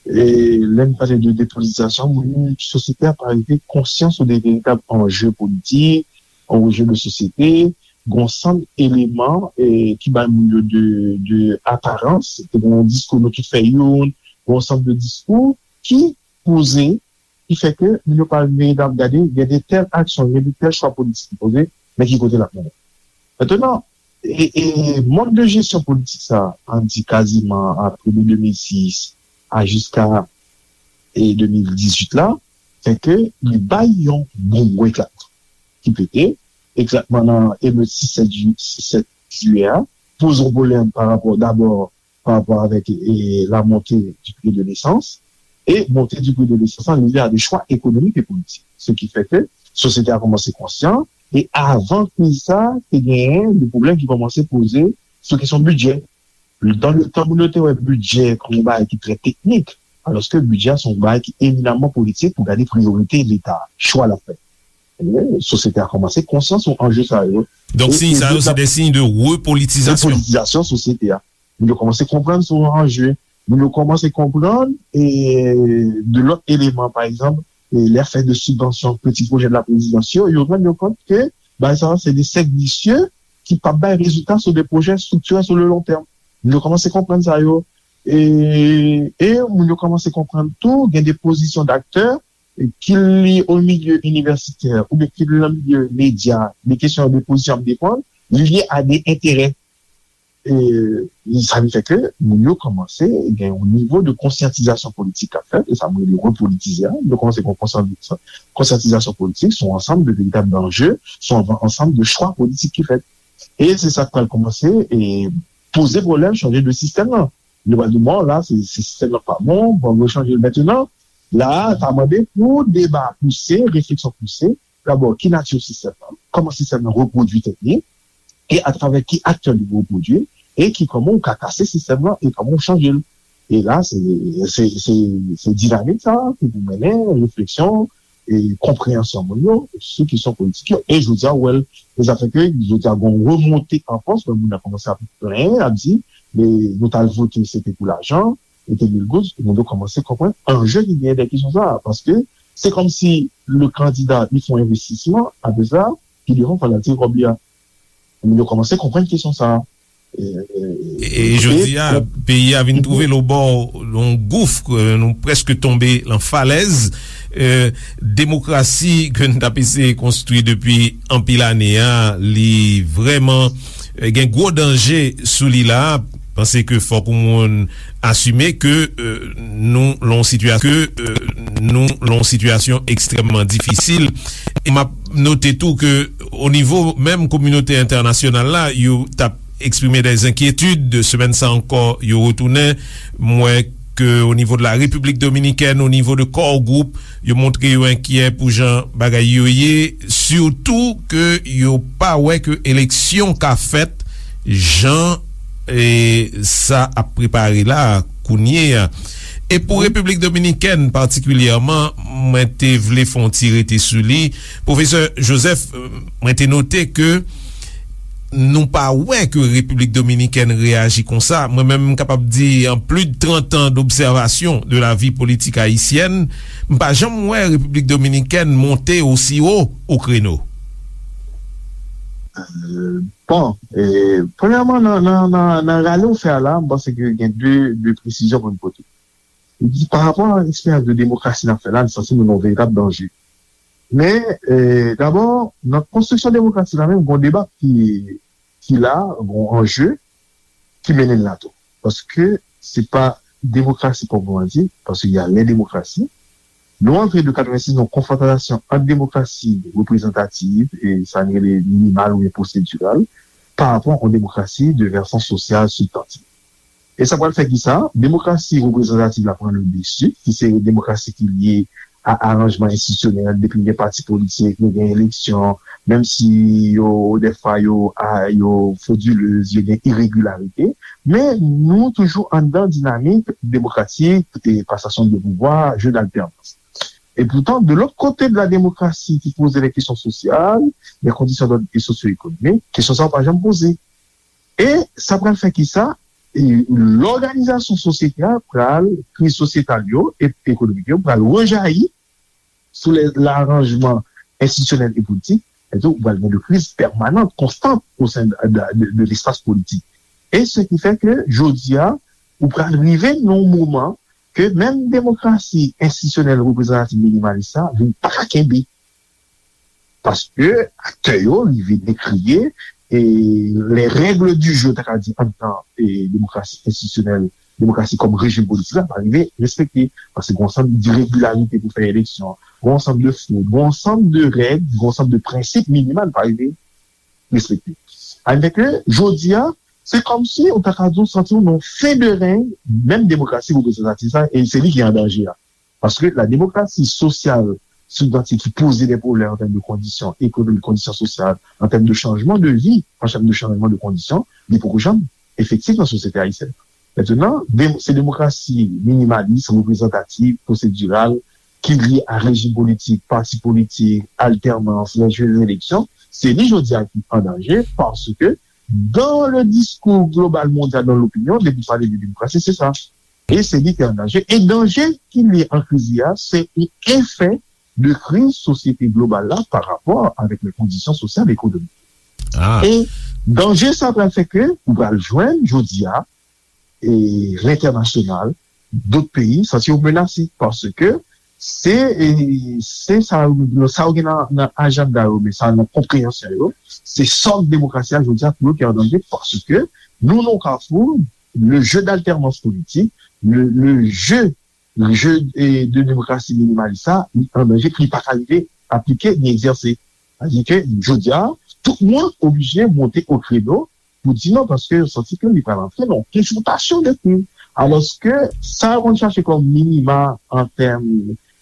e, lè n pale de depolitizasyon, moun, sosyete a pa rive konsyans de veritab anje politik, anje de sosyete, gon sanm eleman, e, ki bay moun yo de, de aparans, te gon diskou nou tout fè youn, gon sanm de diskou ki poze, ki fè ke moun yo pa vin veritab gade, gen de tèl aksyon, gen de tèl chwa politik ki poze, men ki kote l ap mennen. Mentnan, e, e, mòd de jesyon politik sa, an di kaziman apre de de mil sis a jiska, e, de mil dizuit la, fè ke li bay yon bon gwo eklatman ki pete, eklatman nan emet sis sèt ju-, sis sèt jiyè a, poze yon pwoblèm pa rapò, dabò, pa rapò avèk, e, la montée du prix de l'essence, e montée du prix de l'essence la liye a de chwa ekonomik e politik. Se ki fè ke sosyete a kòmanse konsyan, e avan kriz sa, te genyen de pwoblèm ki kòmanse poze sou kesyon bidjè. Dan le tan, moun yo te wè bidjè kòm yon bagay ki trè teknik, alòske bidjè a se yon bagay ki eminamman politik pou gade priyorite Leta, chwa l ap fè. E sosyete a kòmanse konsyan sou anje sa yo. Donk, e, siy e sa yo, se de siy de repolitizasyon. Repolitizasyon sosyete a. Moun yo kòmanse konprann sou anje. Moun yo kòmanse konprann, e, de lòt eleman, pa egzanp, e, lè afè de sibvansyon, peti pwojè de la prezidans yo, yo rann yo kont ke bagay sa yo se de sèk visye ki p ap bay rezilta sou de pwojè striktirè sou le long tèm. Moun yo kòmanse konprann sa yo. E, e moun yo kòmanse konprann tou, gen de pozisyon d'aktè, e, ki li o milye inivèsitè, oubyen ki li nan milye medya, de kesyon de pozisyon ap defann, li lye a de enterè. E, sa vin fè ke moun yo kòmanse gen yon nivo de konsyantizasyon politik k ap fèt, e sa m rele repolitize a. Yo kòmanse gen yon konsyan-, konsyantizasyon politik, se yon ansanm de veritab anje, se yon ansanm de chwa politik ki fèt. E se sa k pral kòmanse, e, poze pwoblèm chanje de sistèm nan. Nou pral di, bon, la, se, se sistèm nan k pa bon, bon, nou chanje l mentnan. La, sa mande pou deba pouse, refleksyon pouse. Dabò, ki nati sistèm nan? Kòman sistèm nan repwodui tèt li? E atravè ki aktè li repwodui? E ki, kòman ou ka kase sistèm nan? E kòman ou chanje l? E la, se, se, se, se dinamik sa ki pou mennen refleksyon e konpreyansyon moun yo sou kesyon politik yo. E jodi a, ou wè l, e sa fè ke jodi a, gen yon remonte an fòs, lè moun nan kòmanse ap plenyen, ap di, men nou t al vote, se te pou lajan, e te mil goud, moun yo kòmanse konprann anje ki genyen dèyè kesyon sa a. Paske se kòmsi le candidat, li fè yon envestisman, apre sa, ki devan fò l al tire kòb li a. Moun yo kòmanse konprann kesyon sa a. E, e, e, e jodi a, peyi a vin twouve l obò yon gouf, e, nou prèske tonbe lan falèz. E, demokrasi ke n t ap eseye konstwi depi anpil ane a, li vrèman, e, gen gwo danje sou li la. Panse ke fòk yon moun asime ke, e, nou lan yon sitiyasyon, ke, e, nou lan yon sitiyasyon ekstrèmman difisil. E m ap note tou ke o nivo menm kominote entènasyonal la, yo t ap eksprime dè enkyetid. Semèn sa ankò, yo retounen. M wè ke o nivo de la Repiblik Dominikèn, o nivo de Core Group, yo montre yo enkyè pou jan bagay yo ye, sitou ke yo pa wè ke eleksyon ka fèt jan E sa ap prepare la kounye a. E pou Repiblik Dominikèn patikilyèman, mwen te vle fè yon ti rete sou li. Pwofesè Joseph, mwen te note ke nou pa wè ke Repiblik Dominikèn reyaji konsa. Mwen menm, m kapab di, an plis de trant an d'observation de la vie politique haïtienne, m pa janm wè Repiblik Dominikèn monte osi wo o kreno. Bon, e, premyèman, nan, nan, nan, nan rale w fè a la, m panse ke gen de, de presizyon pou n pote. Li di, pa rapò a eksperyans de demokrasi n ap fè la, n santi nou nan yon veritab danje. Men, e, dabò, nan konstriksyon demokrasi la menm, gen yon deba ki, ki la, gen yon anje ki mennen l la tou. Paske se pa demokrasi pwòpman di, paske y a les démocraties, nou antre de katrevensis nan yon konfwontasyon ant demokrasi reprezantativ e sa n rele minimal oubyen pwosediral, pa rapò a yon demokrasi de vèsyon sosyal sibstantiv. E sa pral fè ki sa? Demokrasi reprezantativ la pran le desi, ki se demokrasi ki lye a aranjman enstitisyonèl, depi gen pati politik, nou gen eleksyon, menm si yo, dèfwa, yo, a, yo fodilez, yo gen iregilarite, men nou toujou anndan dinamik demokratik e pasasyon de pouvwa, jeu d'alternance. E poutan, de lòt kote de la demokrasi ki poze les questions sociales, les conditions d'ordre socio-économiques, kesyon sa yo pa janm poze. E sa pral fè ki sa? E lòganizasyon sosyete a pral, kriz sosyetal yo e ekonomik yo pral rejayi sou lè laranjman enstitisyonèl e politik, epi tou ou pral gen de kriz pèmanan, konstan o sen de, de, de, de lespas politik. E se ki fè ke jodi a, ou pral rive nan yon moman ke menm demokrasi enstitisyonèl reprezantatif minimalis sa vin pa ka kenbe. Paske aktè yo rive dekriye e les règles du jeu, ta ka di, anndan e demokrasi enstitisyonèl, demokrasi kòm rejim politik la, pa rive respekte. Paske gen yon ansanm diregilarite pou fè eleksyon, gen yon ansanm de fwod, gen yon ansanm de règ, gen yon ansanm de prensip minimal pa rive respekte. Sa vle di ke jodi a, se kòmsi ou ta ka di w santi w nan yon fen de rèy menm demokrasi reprezantatif sa, e se li ki an danje a. Paske la demokrasi sosyal sibstantif ki poze de pwoblèm an tèm de kondisyon ekonomik, kondisyon sosyal, an tèm de chanjman de vi, an tèm de chanjman de kondisyon, li poko janm efektif nan sosyete ayisyèn. Mentnan, de, se demokrasi minimalis, reprezantatif, pwosediral, ki lye a rejim politik, pati politik, altènans, les jeux d'élection, se li jodi a ki an danje, paske dans le discours global mondial, dans l'opinion, depi w pale de demokrasi, se sa. E se li ki an danje. E danje ki lye an kriz li a, se yon efè de kriz sosyete global la pa rapò avèk les conditions sociales et économiques. E danje sa pral fè ke ou pral jwenn jodi a e lentènasyonal, dòt peyi santi yo menase paske se, e, se sa, sa yo gen nan, nan ajanda yo, men sa nan konpreyansyon yo, se sòk demokrasi a jodi a pou yo ki an danje paske nou nan yon kafou, le jeu d'alternance politique, le, le jeu, jeu e, de demokrasi minimalis sa, li an danje, li pa ka rive aplike ni egzèse. Sa vle di ke jodi a, tout moun oblije monte o kreno pou di non, paske yo santi ke li pral antre nan yon konfwontasyon de kriz. Alòske sa yo konn chache kòm minima an tèm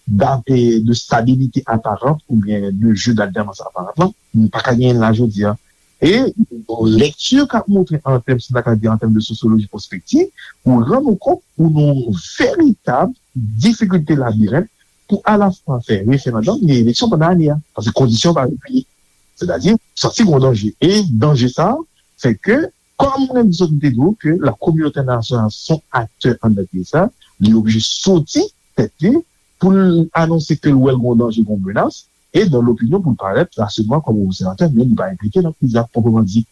d'a- e de stabilite aparant oubyen de jeu d'alternance apparent lan, nou pa ka genyen l la jodi a. E yon lekti k ap montre an tèm, si n ta ka di an tèm de sosyoloji pwospektif, ou rann ou kont ou nan yon veritab difikilte labirent pou alafwa fè referandòm ni eleksyon pandan ane a. Paske kondisyon pa reyini. Sètadi, santi gen yon danje. E danje sa a fè ke, kòm mwen menm sot m te di w, ke la kominote entènasyonal se yon aktè anndan kriz sa, li oblije soti tèt li pou l anonse ke l wè l gen yon danje, gen yon menas, e dans l'opinion pou l parèt raselman kòm obsèvatè, men li pa enplike nan kriz la pwòpman di.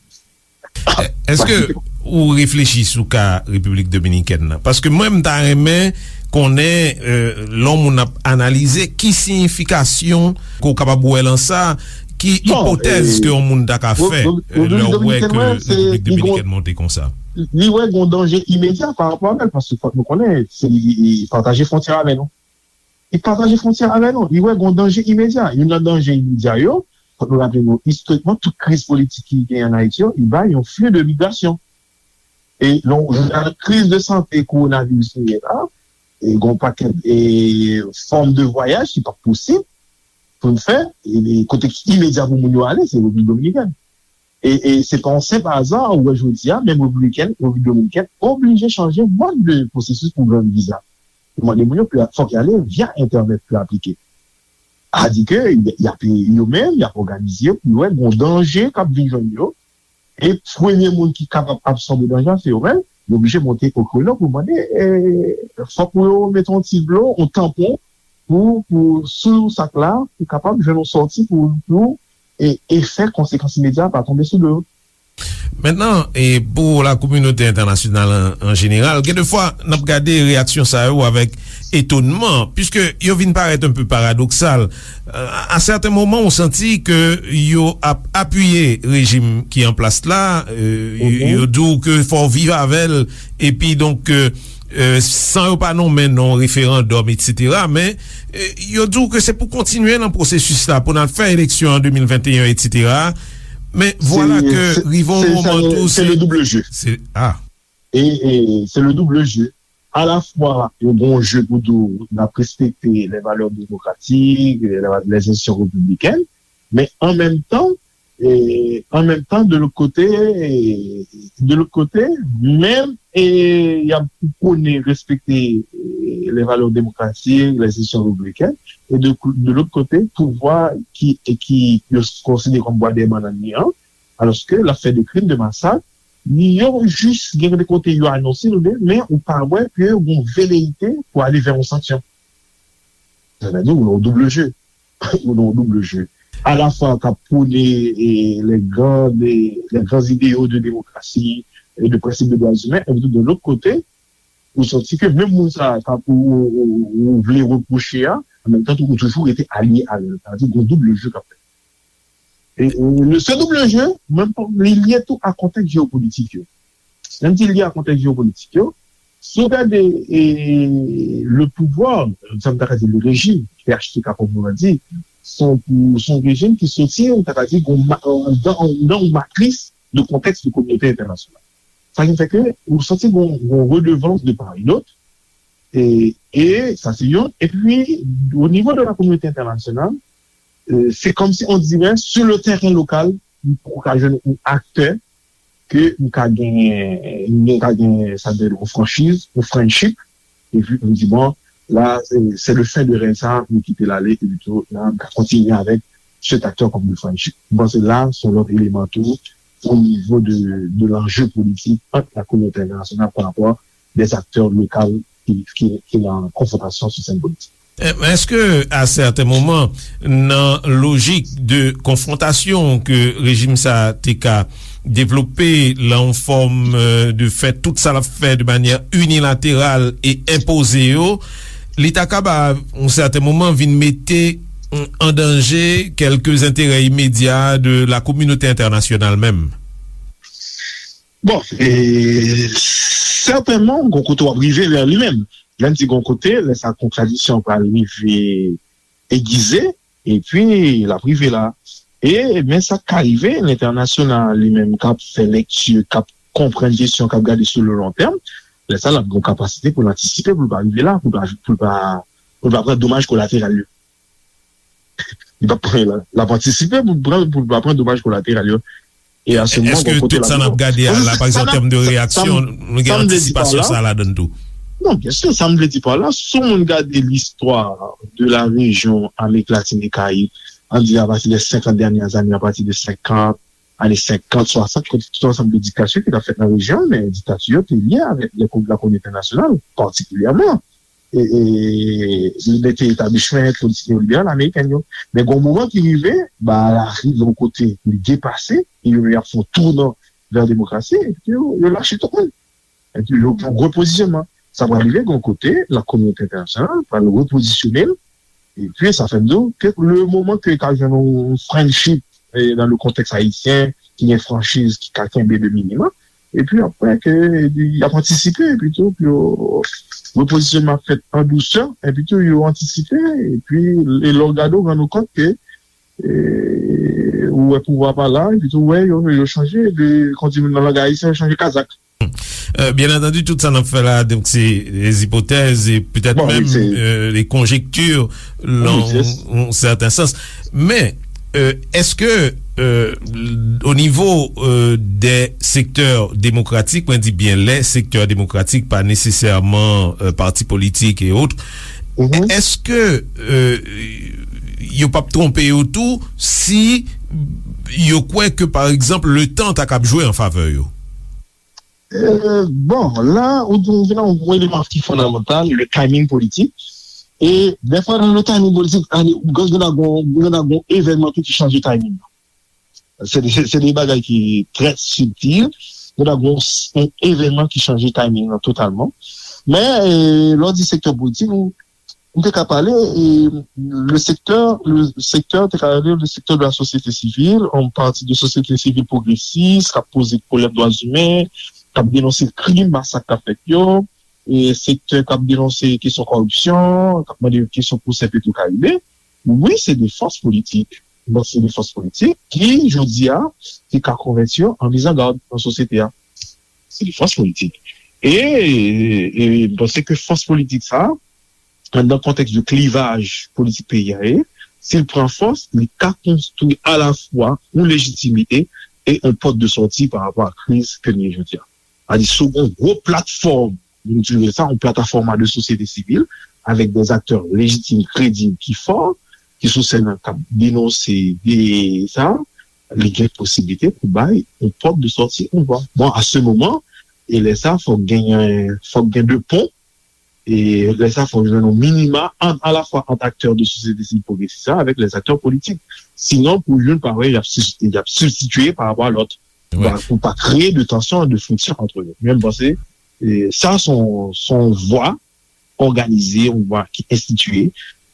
Èske ou reflechi sou ka Repiblik Dominikèn nan? Paske mwen, m ta renmen konnen, e, lè yon moun ap analize, ki siyifikasyon ke w kapab wè lan sa, ki ipotèz ke yon moun ta ka fè, e, lè w wè ke Repiblik Dominikèn monte konsa? Li wè gen yon danje imedya pa rapò avè l, paske fòk nou konnen, se li pataje fwontyè avè nou. Li pataje fwontyè avè nou. Li wè gen yon danje imedya. Youn nan danje imedya yo, fòk nou raple nou, istorikman, tout kriz politik ki genyen ann Ayiti yo, li bay yon fli de migrasyon. E lè w jwenn kriz de sante kowonaviris nou ye la, e gen yon pakèt e fòm de vwayaj ki p ap posib pou n fè, e kote ki imedya pou moun yo ale, se Repiblik Dominikèn. E, e se pa yon senp aza, ou wè jodi a, menm repibliken, Repiblik Dominikèn oblije chanje mòd de pwosesis pou jwenn viza. Yo mande moun yo pou fòk y ale via entènèt pou aplike. A di ke y ap, yo menm, y ap òganize yo pou yo wè gon danje k ap vin jwenn yo. E premye moun ki kapab absòbe danje a, se yo menm. Yo oblije monte o kreno pou mande, e, fòk pou yo mete yon ti dlo, yon tanpon, pou, pou sou sak la, pou kapab jwenn yon sòti pou, pou, e, efè konsekans imedya pa tonbe sou do yo. Mentnan, e pou la kominote entènasyonal an, an jeneral, gen de fwa, n ap gade reyaksyon sa yo avèk etonman, piske yo vin parèt un peu paradoksal. Euh, à certains moments, ou santi ke yo ap apiye rejim ki an plas la, euh, yo, yo di w ke fò w viv avè l, epi donk, euh, euh, san yo pa nonmen non referandòm, etsetera, men, euh, yo di w ke se pou kontinye nan pwosesis la, pou n al fè eleksyon an de mil venteyen, etsetera. Men vwala ke rive yon moman tou, se le double jeu. Se, ah. E, e se le double jeu. Alafwa, yo gen yon je pou di w, n ap respekte les valeurs démocratiques, les, les institutions républicaines, men an menm tan, e, an menm tan, de lòt kote, e, de lòt kote, menm, e, y ap pwone respekte, e, les valeurs démocratiques, les institutions républicaines, e de, de lòt kote, pouvwa ki, e ki yo konsidere kòm bwa dèyè bannann li an, alòske l ap fè de krim, de masak, yo jis gen de kote yo anonse nou de, men ou pa wè ke yon veleyite pou ale vè yon sanksyon. Sa vle di, ou nan yon double jeu. Ou nan yon double jeu. Alafwa k ap pwone, e, les grands, les, les grands idéaux de démocratie et de principe de droits humains, epi tou de lòt kote, ou santi ke menm moun sa a k ap ou, ou, ou, ou vle repwoche a, an menm tan tou, ou toujou rete alye avè l. Sa vle di, gon double jeu k ap fèt. E, e, le, se double jeu, menm pa, li lye tou a kontèks jewopolitik yo. Lè m di lye a kontèks jewopolitik yo, si w gade, e, le pouvoir, sa m ta ka di le régime, P H T K kòm nou di, se yon, se yon rejim ki soti, m ta ka di, gon ma-, nan, nan yon matris de kontèks de kominote entènasyonal. Sa ki fè ke ou santi gon, gon redevans de part et d'autre, e, e sa se youn. Epi, o nivo de la kominote entènasyonal, e, se kòmsi on dirait, sur le terrain local, ou ka jwenn yon aktè ke ou ka gen, ou ka gen, sa vle di, yon franchiz, yon friendship, epi ou di, bon, la, c'est, c'est le fin de règne sa, nou kite l ale, epi tou, la, nou ka kontinye avèk cet acteur comme le friendship. Bon, se la, se yon lòt eleman tou, o nivo de, de l'enjeu politique entre la communauté internationale par rapport des acteurs locaux ki, ki, ki nan konfwontasyon sou sèn politik. Eh, men èske, à certains moments, nan lojik de konfwontasyon ke rejim sa te ka devlope lan yon fòm, euh, de fè tout sa l ap fè de manyè inilateral e enpoze yo, li ta ka ba, yon sèten moman, vin mete, mm, an danje kèlke enterè imedya de la kominote entènasyonal menm? Bon, e, sètènman, gon kote w ap rive lè li menm. Lè n di gon kote, lè sa kontradisyon pral rive egize, epi l ap rive la. E, men sa k ka rive, lentènasyonal li menm k ap fè lekti, k ap konprann kesyon, k ap gade sou le long terme, lè sa l ap gen yon kapasite pou l antisipe, pou l pa rive la, pou l pa, pou l pa, pou l pa pran domaj kolateral yo. Li p ap pran, l ap antisipe pou l pran, pou l pa pran domaj kolateral yo. E a se moman, èske tout sa n ap gade a la, pa egzanp, an tèm de reyaksyon, nou gen antisipasyon sa ladan tou? Non, byen si, sa m vle di pa la, si yon moun gade listwa de la rejyon Amerik Latin e Karayib, an di apati de senkant dènyè ane, apati de senkant, ane senkant, swasant, kote tout ansanm de diktatè ki t ap fèt nan rejyon an, men diktati yo te lye avèk lè, la kominote entènasyonal, patikilyèman. E, e, li mete etablishman politik neoliberal ameriken yo. Men gon moman ki rive, ba, la rive yon kote, li depase, e yo menm y ap fè yon tounan vè demokrasi, epi yo, yo lache tout moun. Epi yo gen yon repozisyonman. Sa pral rive gon kote, la kominote entènasyonal pral repozisyone l, epi sa fè m di w ke le moman ke ka jwenn yon friendship, e, dans le contexte haïtien, ki gen franchiz, ki ka kenbe de minimòm, epi apre ke y ap antisipe, epi tou, pou yo repozisyonman ap fèt an dousè, epi tou, yo antisipe, epi, e lè w gade, w rann ou kont ke, e, ou wè pouvwa pa la, epi tou, w wè, yo, yo chanje, de, kon di nan lang ayisyen, yo chanje kazak. Euh, bien entendu, tout sa n ap fè la, donk, se des hypothèses et peut-être même, euh, des conjectures, dans un certain sens. Men, euh, èske euh, o nivo, euh, dè sektè demokratik, mwen di byen lè sektè demokratik, pa nesesèman, euh, pati politik e otre, èske, euh, yo p ap twonpe yo tou si yo kwè ke, pa egzanp, letan ta kab jwe an favè yo? Euh, bon, la, ou, ou vin a yon eleman ki fondamantal, le timing politik. E dèfwa nan le timing politik, gen nan gon evènman tou ki chanje timing nan. Se de, se de bagay ki trè sibtil. Gen nan gon evènman ki chanje timing nan totalman. Men, euh, lè w di sektè politik, ou, ou te ka pale, e le sektè, le sektè, te ka rele le sektè de la sosyete sivil, yon pati de sosyete sivil pwogresis, k ap poze pwoblèm dwa imen, k ap denonse krim, masak k ap fèt yo, e sektè k ap denonse kesyon kòripsyon, k ap mande kesyon pwosè Petro Caribe. Wi, se de fòs politik. Bon, se de fòs politik ki, jodi a, ki ka konvèti yo an mizangad nan sosyete a. Se de fòs politik. E, e m panse ke fòs politik sa, nan kontèks de klivaj politik peyi a ye, si l pran fòs, li ka konstwi alafwa yon lejitimite e yon pòt de sòti pa rapò a kriz ke n ye jodi a. Sadi, si w gen yon gwo platfòm, nou di sa, yon plataforma de sosyete sivil, avèk de aktè lejitim, kredib, ki fò, ki sou sèn nan, k ap denonse de sa, li gen posiblite pou bay yon pòt de sòti, yon vwa. Bon, a se moman, e lè sa, fòk genyen, fòk gen de pon, e lè sa, fòk jwenn yon minima ant, alafwa ant aktè de sosyete sivil pwogresis la avèk lè aktè politik. Sinon, pou youn pa wè, y ap sibstitye pa rapò a lòt. Pou pa kreye de tansyon, de friksyon ant yo. Men m panse, e, sa se yon, se yon vwa òganize, yon vwa ki enstitiye,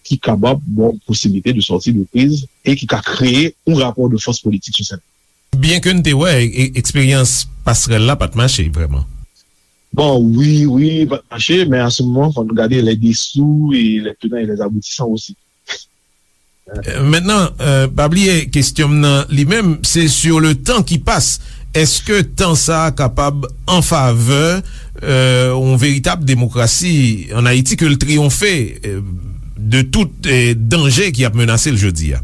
ki kapab ba w posiblite de sòti de kriz e ki ka kreye yon rapò de fòs politik sou sèn. Byenke n te wè e, eksperyans pasrèl la pa t mache vrèman. Bon, wi, wi, pa t mache, men a se moman, fò nou gade les dessous et les tenants et les aboutissants aussi. Mentnan, pa bliye, kesyon m nan li menm, se sur le temps qui passe. Èske tan sa a kapab an favè yon veritab demokrasi ann Ayiti, ke l triyonfe de tout danje ki ap menase l jodi a?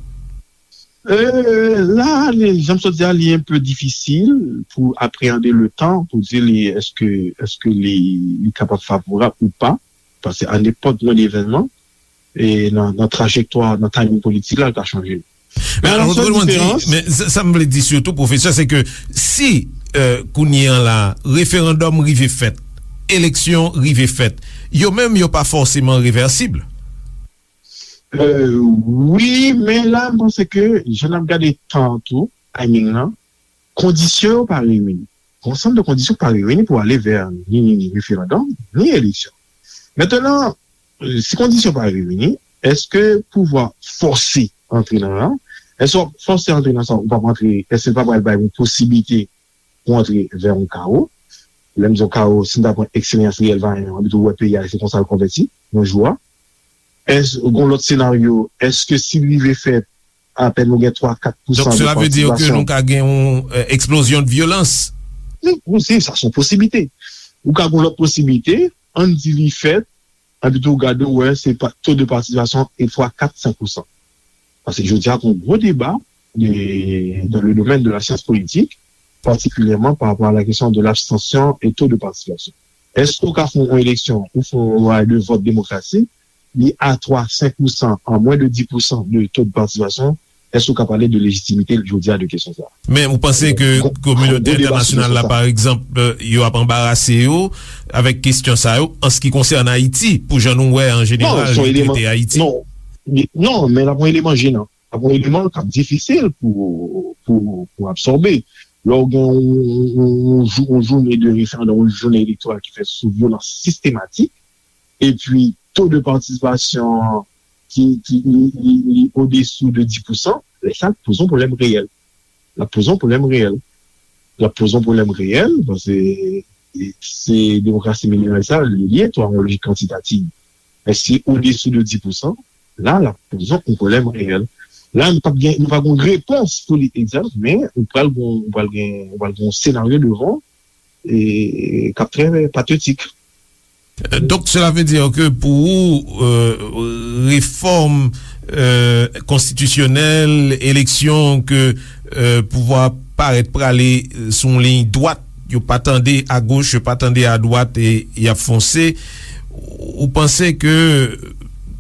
La, jan m sot di a, li enpe difisil pou apreyande le tan, pou di li èske, èske li, li kapab favorab ou pa, paske a nenpòt mwen evènman, e nan, nan trajektwa, nan timing politik la, l ka chanje. Men alò, sa, sa m vle di sitou, pwofesè, se ke si kounye a la, referandòm rive fèt, eleksyon rive fèt, yo menm yo pa fòseman revèsib. Wi, men la, m panse ke jan n ap gade tan an tou, timing nan, kondisyon yo pa reyini. Yon ansanm de kondisyon pa reyini pou ale vè ni, ni, ni referandòm, ni eleksyon. Mentnan, si kondisyon pa reyini, èske pouvwa fòse antre nan la? Èske w ap fòse antre nan sa, ou p ap antre, èske l pa pral bay yon posiblite pou antre vè yon kawo? Lè m di yon kawo, si n ta pran eksperyans reyèl Vayan an, anpi tou wè peyi a, se konsa l konvèti, yon jou a. Èske, gon lòt senaryo, èske si l rive fèt, apèn ou gen twa, kat pousan de patisipasyon. Donk, sela ve di ke nou ka gen yon eksplozyon de vyolans? Wi, wi, se sa, se yon posiblite. Ou ka gen yon lòt posiblite, ann di li fèt, anpi tou w gade, w wè, se to de patisipasyon e twa, kat, senk pousan. Paske jodi a, gen yon gwo deba de, dans le domaine de la science politique, particulièrement par rapport à la question de l'abstention et taux de participation. Èske ou ka fè yon eleksyon ou fè yon lwa de vòt demokratik, li a twa, senk pousan, an mwen de dis pousan de to de patisipasyon, èske ou ka pale de lejitimite jodi a de kesyon sa a? Men ou panse ke kominote entènasyonal la, pa egzanp, yo ap anbarase yo avèk kesyon sa yo, an se ki konsène Ayiti, pou jan nou wè an jeneral yo trete Ayiti? Non, men l ap yon eleman jenan. Ap yon eleman k ap difisil pou, pou, pou absòbe. Lè w gen yon, yon, yon jou, yon jounen de referandòm, yon jounen elektoral ki fèt sou vyolans sistematik, epi to de patisipasyon ki, ki li, li, li odesou de dis pousan, lè sa l ap poze yon pwoblèm reyèl. L ap poze yon pwoblèm reyèl. L ap poze yon pwoblèm reyèl, paske se demokrasi minimal sa, li ye tou a yon lojik kantitativ. Men si odesou de dis pousan, la, l ap poze yon pwoblèm reyèl. La, nou p ap gen, nou pa gen yon repons pou li egzak, men ou pral gen, ou pral gen, ou pral gen yon senaryo devan e k ap trè patetik. Donk, sela ve di ke pou ou, refòm euh, konstitisyonèl, eleksyon ke, euh, pouvwa parèt prale, euh, sou yon liy dwat, yo pa tande agoch, yo pa tande adwat, e y ap fonse. Ou panse ke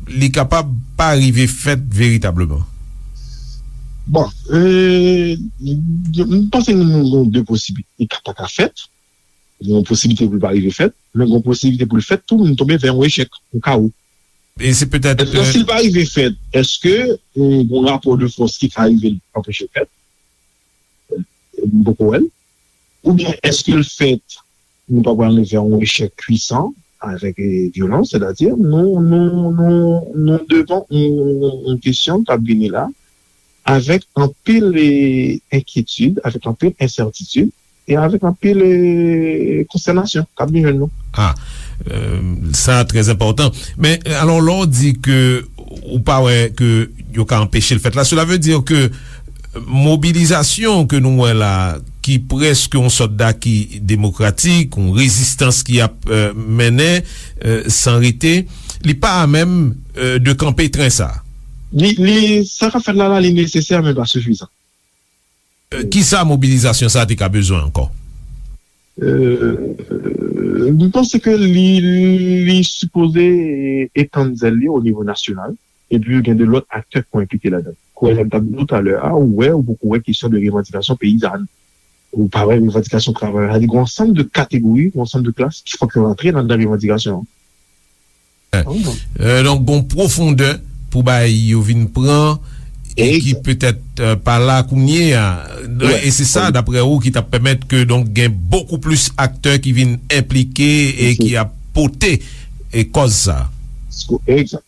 li kapab pa rive fèt veritableman? Bon, euh, m panse nou gen de posibilite. Li ka pa ka fèt, gen yon posibilite pou l pa rive fèt, men gen yon posibilite pou l fèt tou, nou tonbe vè yon echèk, yon kawo. E se petèt, èske, euh, si l pa rive fèt, èske, euh, gen yon rapò de fòs ki ka rive l anpeche l fèt? M poko wè l. Oubyen èske l fèt, nou pa pral rive a yon echèk pwisan avèk, eh, vyolans, sètadi nou, nou, nou, nou devan yon, yon kesyon k ap vini la avèk anpil, eh, enkyetid, avèk anpil ensètitid e avèk anpil, eh, konstènasyon k ap vin jwenn nou. Ah, euh, sa trè enpòtan. Men, alò, lè w di ke ou pa wè ke yo ka anpeche l fèt la, cela veut dire ke mobilizasyon ke nou wè la, ki prèske yon sòt daki demokratik, yon rezistans ki ap, euh, mennen, euh, san rete, li pa a menm, euh, de kanpe tren sa. Li, li, sa k ap fèt la, la, li nesesè, men pa sifizan. Euh, kisa mobilizasyon sa te ka bezwen ankò? Euh, m panse ke li, li sipoze etann zèl li o nivo nasyonal. Epi gen de lòt aktè ki enplike ladan. Kouwè jan m t ap di w talè a, ou wè, ou poko wè kesyon de revandikasyon peyizàn. Ou pa wè revandikasyon travayè. Sa di gen yon ansanm de kategori, yon ansanm de klas ki fòk yo rantre nan, nan revandikasyon an. Eh, donk, gon pwofondè pou bagay yo vin pran e ki petèt, eh, pa la kounye a. E se sa, daprè ou, ki t ap pèmèt ke, donk, gen bokou plis aktè ki vin enplike e ki ap pote e kòz sa. Egzak.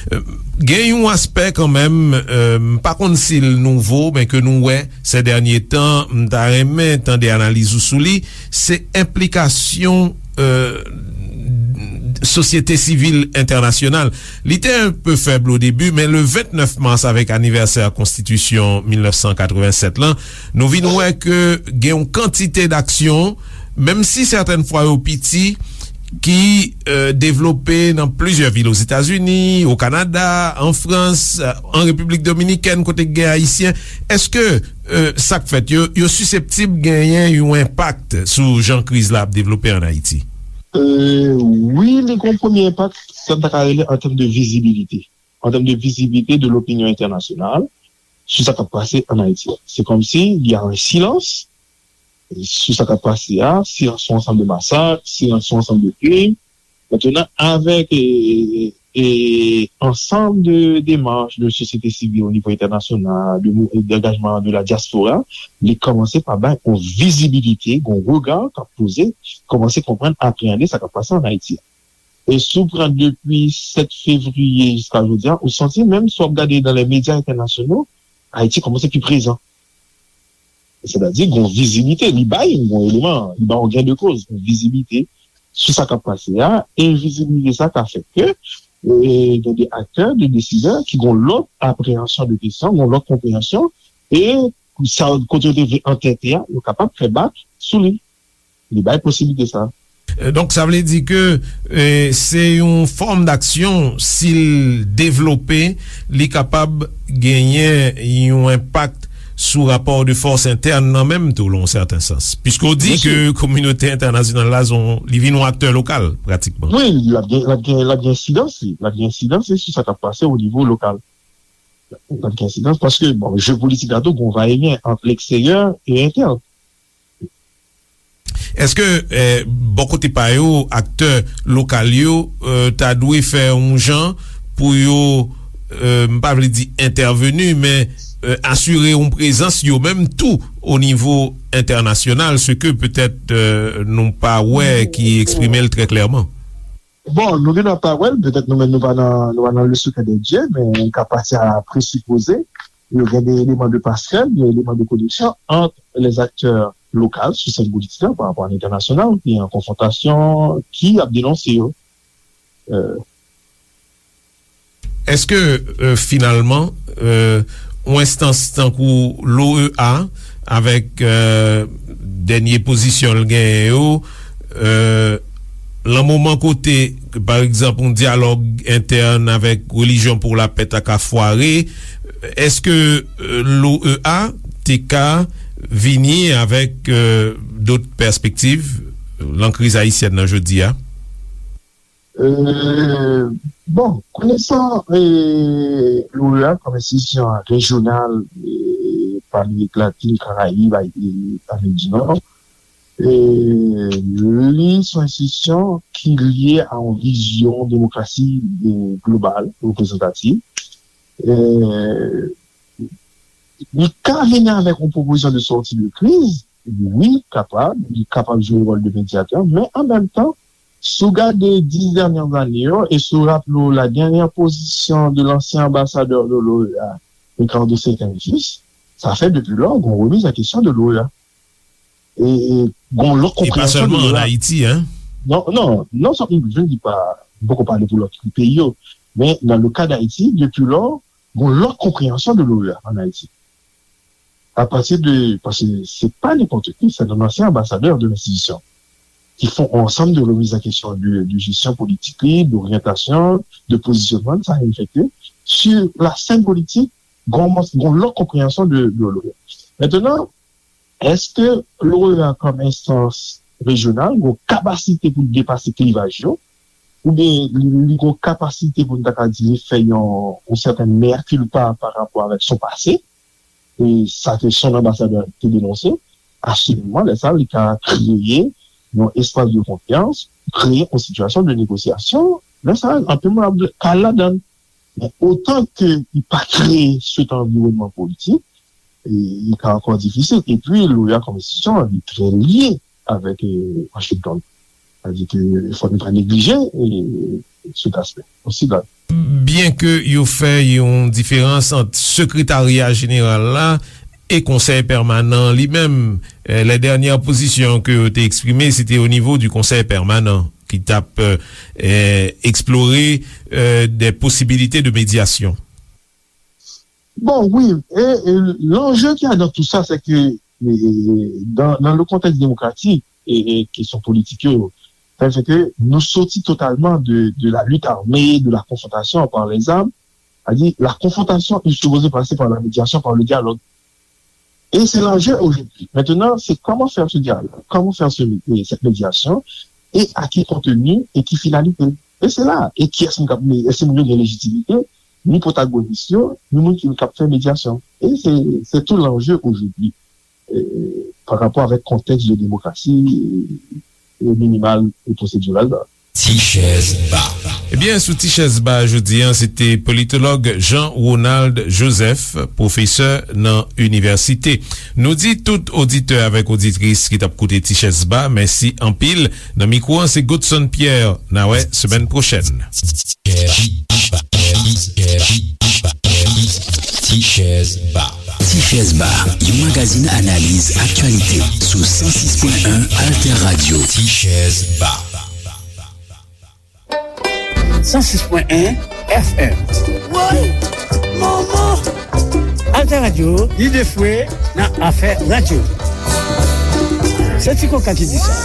Eh, gen yon aspè kanmenm, eh, m pa konn si l nouvo, men ke nou wè sè dènye tan, m ta renmen tande analiz ou sou li, se enplikasyon, eh, sosyete sivil entènasyonal. Li te enpe fèb o debi, men le vennèf mas, avèk anivèsè konstitisyon mil nèf san katrevennsèt lan, nou vin wè ke gen yon kantite d'aksyon, menm si sètèn fwa yo piti, ki, eh, devlope nan plizyè vil Ozetazini, o Kanada, an Frans, eh, an Repiblik Dominikèn, kote k gen Ayisyen. Èske, eh, sa k fèt yo, yo siseptib genyen yon enpak sou jan kriz la ap devlope ann Ayiti? Eh, wi, li gen yon premye enpak, sa n ta ka rele an tèm de vizibilite. An tèm de vizibilite de lopinyon entènasyonal sou sa k ap pase ann Ayiti a. Se kòmsi y a un silans sou sa k ap pase a, silans sou ansanm de masak, silans sou ansanm de krim. Mentnan, avèk, e, e, ansanm de demach de sosyete sivil o nivo entènasyonal, de mou-, d'angajman de la dyaspora, li kòmanse pa bay yon vizibilite, yon rega k ap poze, kòmanse konprann, apreyande sa k ap pase ann Ayiti a. E si w pran depi sèt fevriye jiska jodi a, ou santi menm si w ap gade nan lè medya entènasyonal, Ayiti kòmanse pi prezan. Sètadi, gen yon vizibilite, li bay yon eleman, li bay yon gain de cause, yon vizibilite sou sa k ap pase a, e vizibilite sa ka fè ke, e, gen de aktè, de desidè ki gen yon lòt apreyansyon de kesyon, gen yon lòt konpreyansyon, e sa, kote yo te vle antète a, yo kapab fè bak sou li. Li bay posiblite sa. Euh, donk, sa vle di ke, euh, se yon fòm d'aksyon, si l devlope, li kapab genyen yon enpak sou rapò de fòs entèn nan menm tou, lan yon sèten sans. Piske w di ke kominote entènasyonal la, se yon, li vin yon aktè lokal, pratikman. Wi, l ap gen, l ap gen, l ap gen ensidans, li. L ap gen ensidans, li, sou sa k ap pase o nivo lokal. L ap gen ensidans, paske, bon, je politik la tou, gen yon va e vyen ant leksteryè e entèn. Èske, eh, bò kote pa yo, aktè lokal yo, eh, ta dwe fè yon jan pou yo, eh, m pa vle di entèveni, men, eh, asire yon prezans yo menm tou o nivo entènasyonal, se ke petèt, eh, nou pa wè ki eksprime l trè klèman? Bon, nou gen dwa pa wè l, petèt nou menm nou pa nan, nou pa nan le secret des dieux, men ka pati a presipoze, yo gen de eleman de pasrèl, de eleman de koneksyon ant les acteurs locaux sou sèn politik la pa rapò a entènasyonal, ki an konfwontasyon, ki ap denonse yo. Euh, Èske, euh, finalman, euh, yon enstans tankou l'O E A, avèk, euh, dènye pozisyon l genyen yo, euh, Lan moman kote, pa egzanp, yon dyalòg entèn avèk Relijyon pou Lapè ta ka fware, èske, euh, l'O E A te ka vini avèk, euh, dòt pèspektiv lan kriz ayisyèn nan jodi a? Euh, bon, konesan, euh, l'O E A kòm enstitisyon rejyonal, euh, pa Amerik Latin, Karayib, Ay-, e Amerik di Nò, euh, li se yon enstitisyon ki lye a yon vizyon demokrasi, euh, global, reprezantativ. Euh, li ka vini avèk yon pwopozisyon de sòti de kriz, wi, kapab, li kapab jwe wòl de medyatè, men an menm tan, si w gade dis dènyè zane yo, e si w raple w la dènyè pozisyon de lansyen anbasadè de l'O E A, Ricardo Setangis, sa fè depi lò, gon remiz an kesyon de l'O E A. E, e gon lòt konpreyansyon de l'O E A. E pa sèlman an Ayiti, en? Non, non, non, sa, je ne dis pas, m poko pale pou lòt peyi yo, men nan le ka d'Ayiti, depi lò, gon lòt konpreyansyon de l'O E A an Ayiti. A pati de, paske se pa nenpòt ki, se yon ansyen anbasadè de lenstitisyon ki fè yon ansanm de remiz an kesyon de, de jesyon politik li, d'oryantasyon, de pozisyonman, sa infekte. Sur la scène politique, gon, gon lòt konpreyansyon de, de l'O E A. Mentnan, èske l'O E A kòm enstans rejyonal gon kapasite pou l depase klivaj yo, oubyen li, li gon kapasite pou n ta ka di li fè yon, yon sèten mea culpa pa rapò avèk son pase, e sa ke son anbasadè te denonse, asirèman, lè sa, li ka kreye yon espas de konfyans, kreye yon sitiyasyon de negosyasyon. Lè sa, anpil moun ap ka al ladan l. Men otan ke li pa kreye sèt anviwònman politik, e, li ka ankò difisil. Epi, l'O E A kòm enstitisyon, li trè lye avèk, e, Washington. Sa vle di ke fòk nou pa neglije, e, sèt aspè. Osi la. Byenke yo fè yon diferans ant Sekretarya Jeneral la e Konsèy Pèmanan li menm, e, lè dènyè pozisyon ke yo te eksprime, se te o nivo di Konsèy Pèmanan ki t ap, e, e, eksplore, e, de posibilite de medyasyon. Bon, wi, e, e, lanje ki a dans tout ça, c'est que, e, e, dans, dans le contexte démocratique, e, e, kesyon politik yo, sa fè ke nou soti totalman de, de la lutte armée, de la confrontation par les armes, c'est-à-dire la confrontation est supposée passer par la médiation, par le dialogue. Et c'est l'enjeu aujourd'hui. Maintenant, c'est comment faire ce dialogue, comment faire ce, cette médiation, et à quel contenu, et quelle finalité. Et c'est là, et qui est-ce qui, est-ce que nous avons légitimité, ni protagoniste, ni moun ki kap fè médiation. Et c'est, c'est tout l'enjeu aujourd'hui, euh, par rapport avec contexte de démocratie, euh, minimale et procédurale. Ti chèz ba. Ebyen, sou Ti chèz ba jodi a, se te politològ Jean Ronald Joseph, pwofesè nan inivèsite. Nou di tout oditè avèk oditris ki t ap koute Ti chèz ba, mèsi anpil. Nan mikwo an, se Godson Pierre. N a wè semèn pwochèn. Ti chèz ba. Ti chèz ba, yon magazin analiz aktyalite sou san sis pwen en Alter Radio. Ti chèz ba. San sis pwen en F M. Woy! Manman! Alter Radio, lide fwe nan afè radyo. Se Ti Koka ki di sa.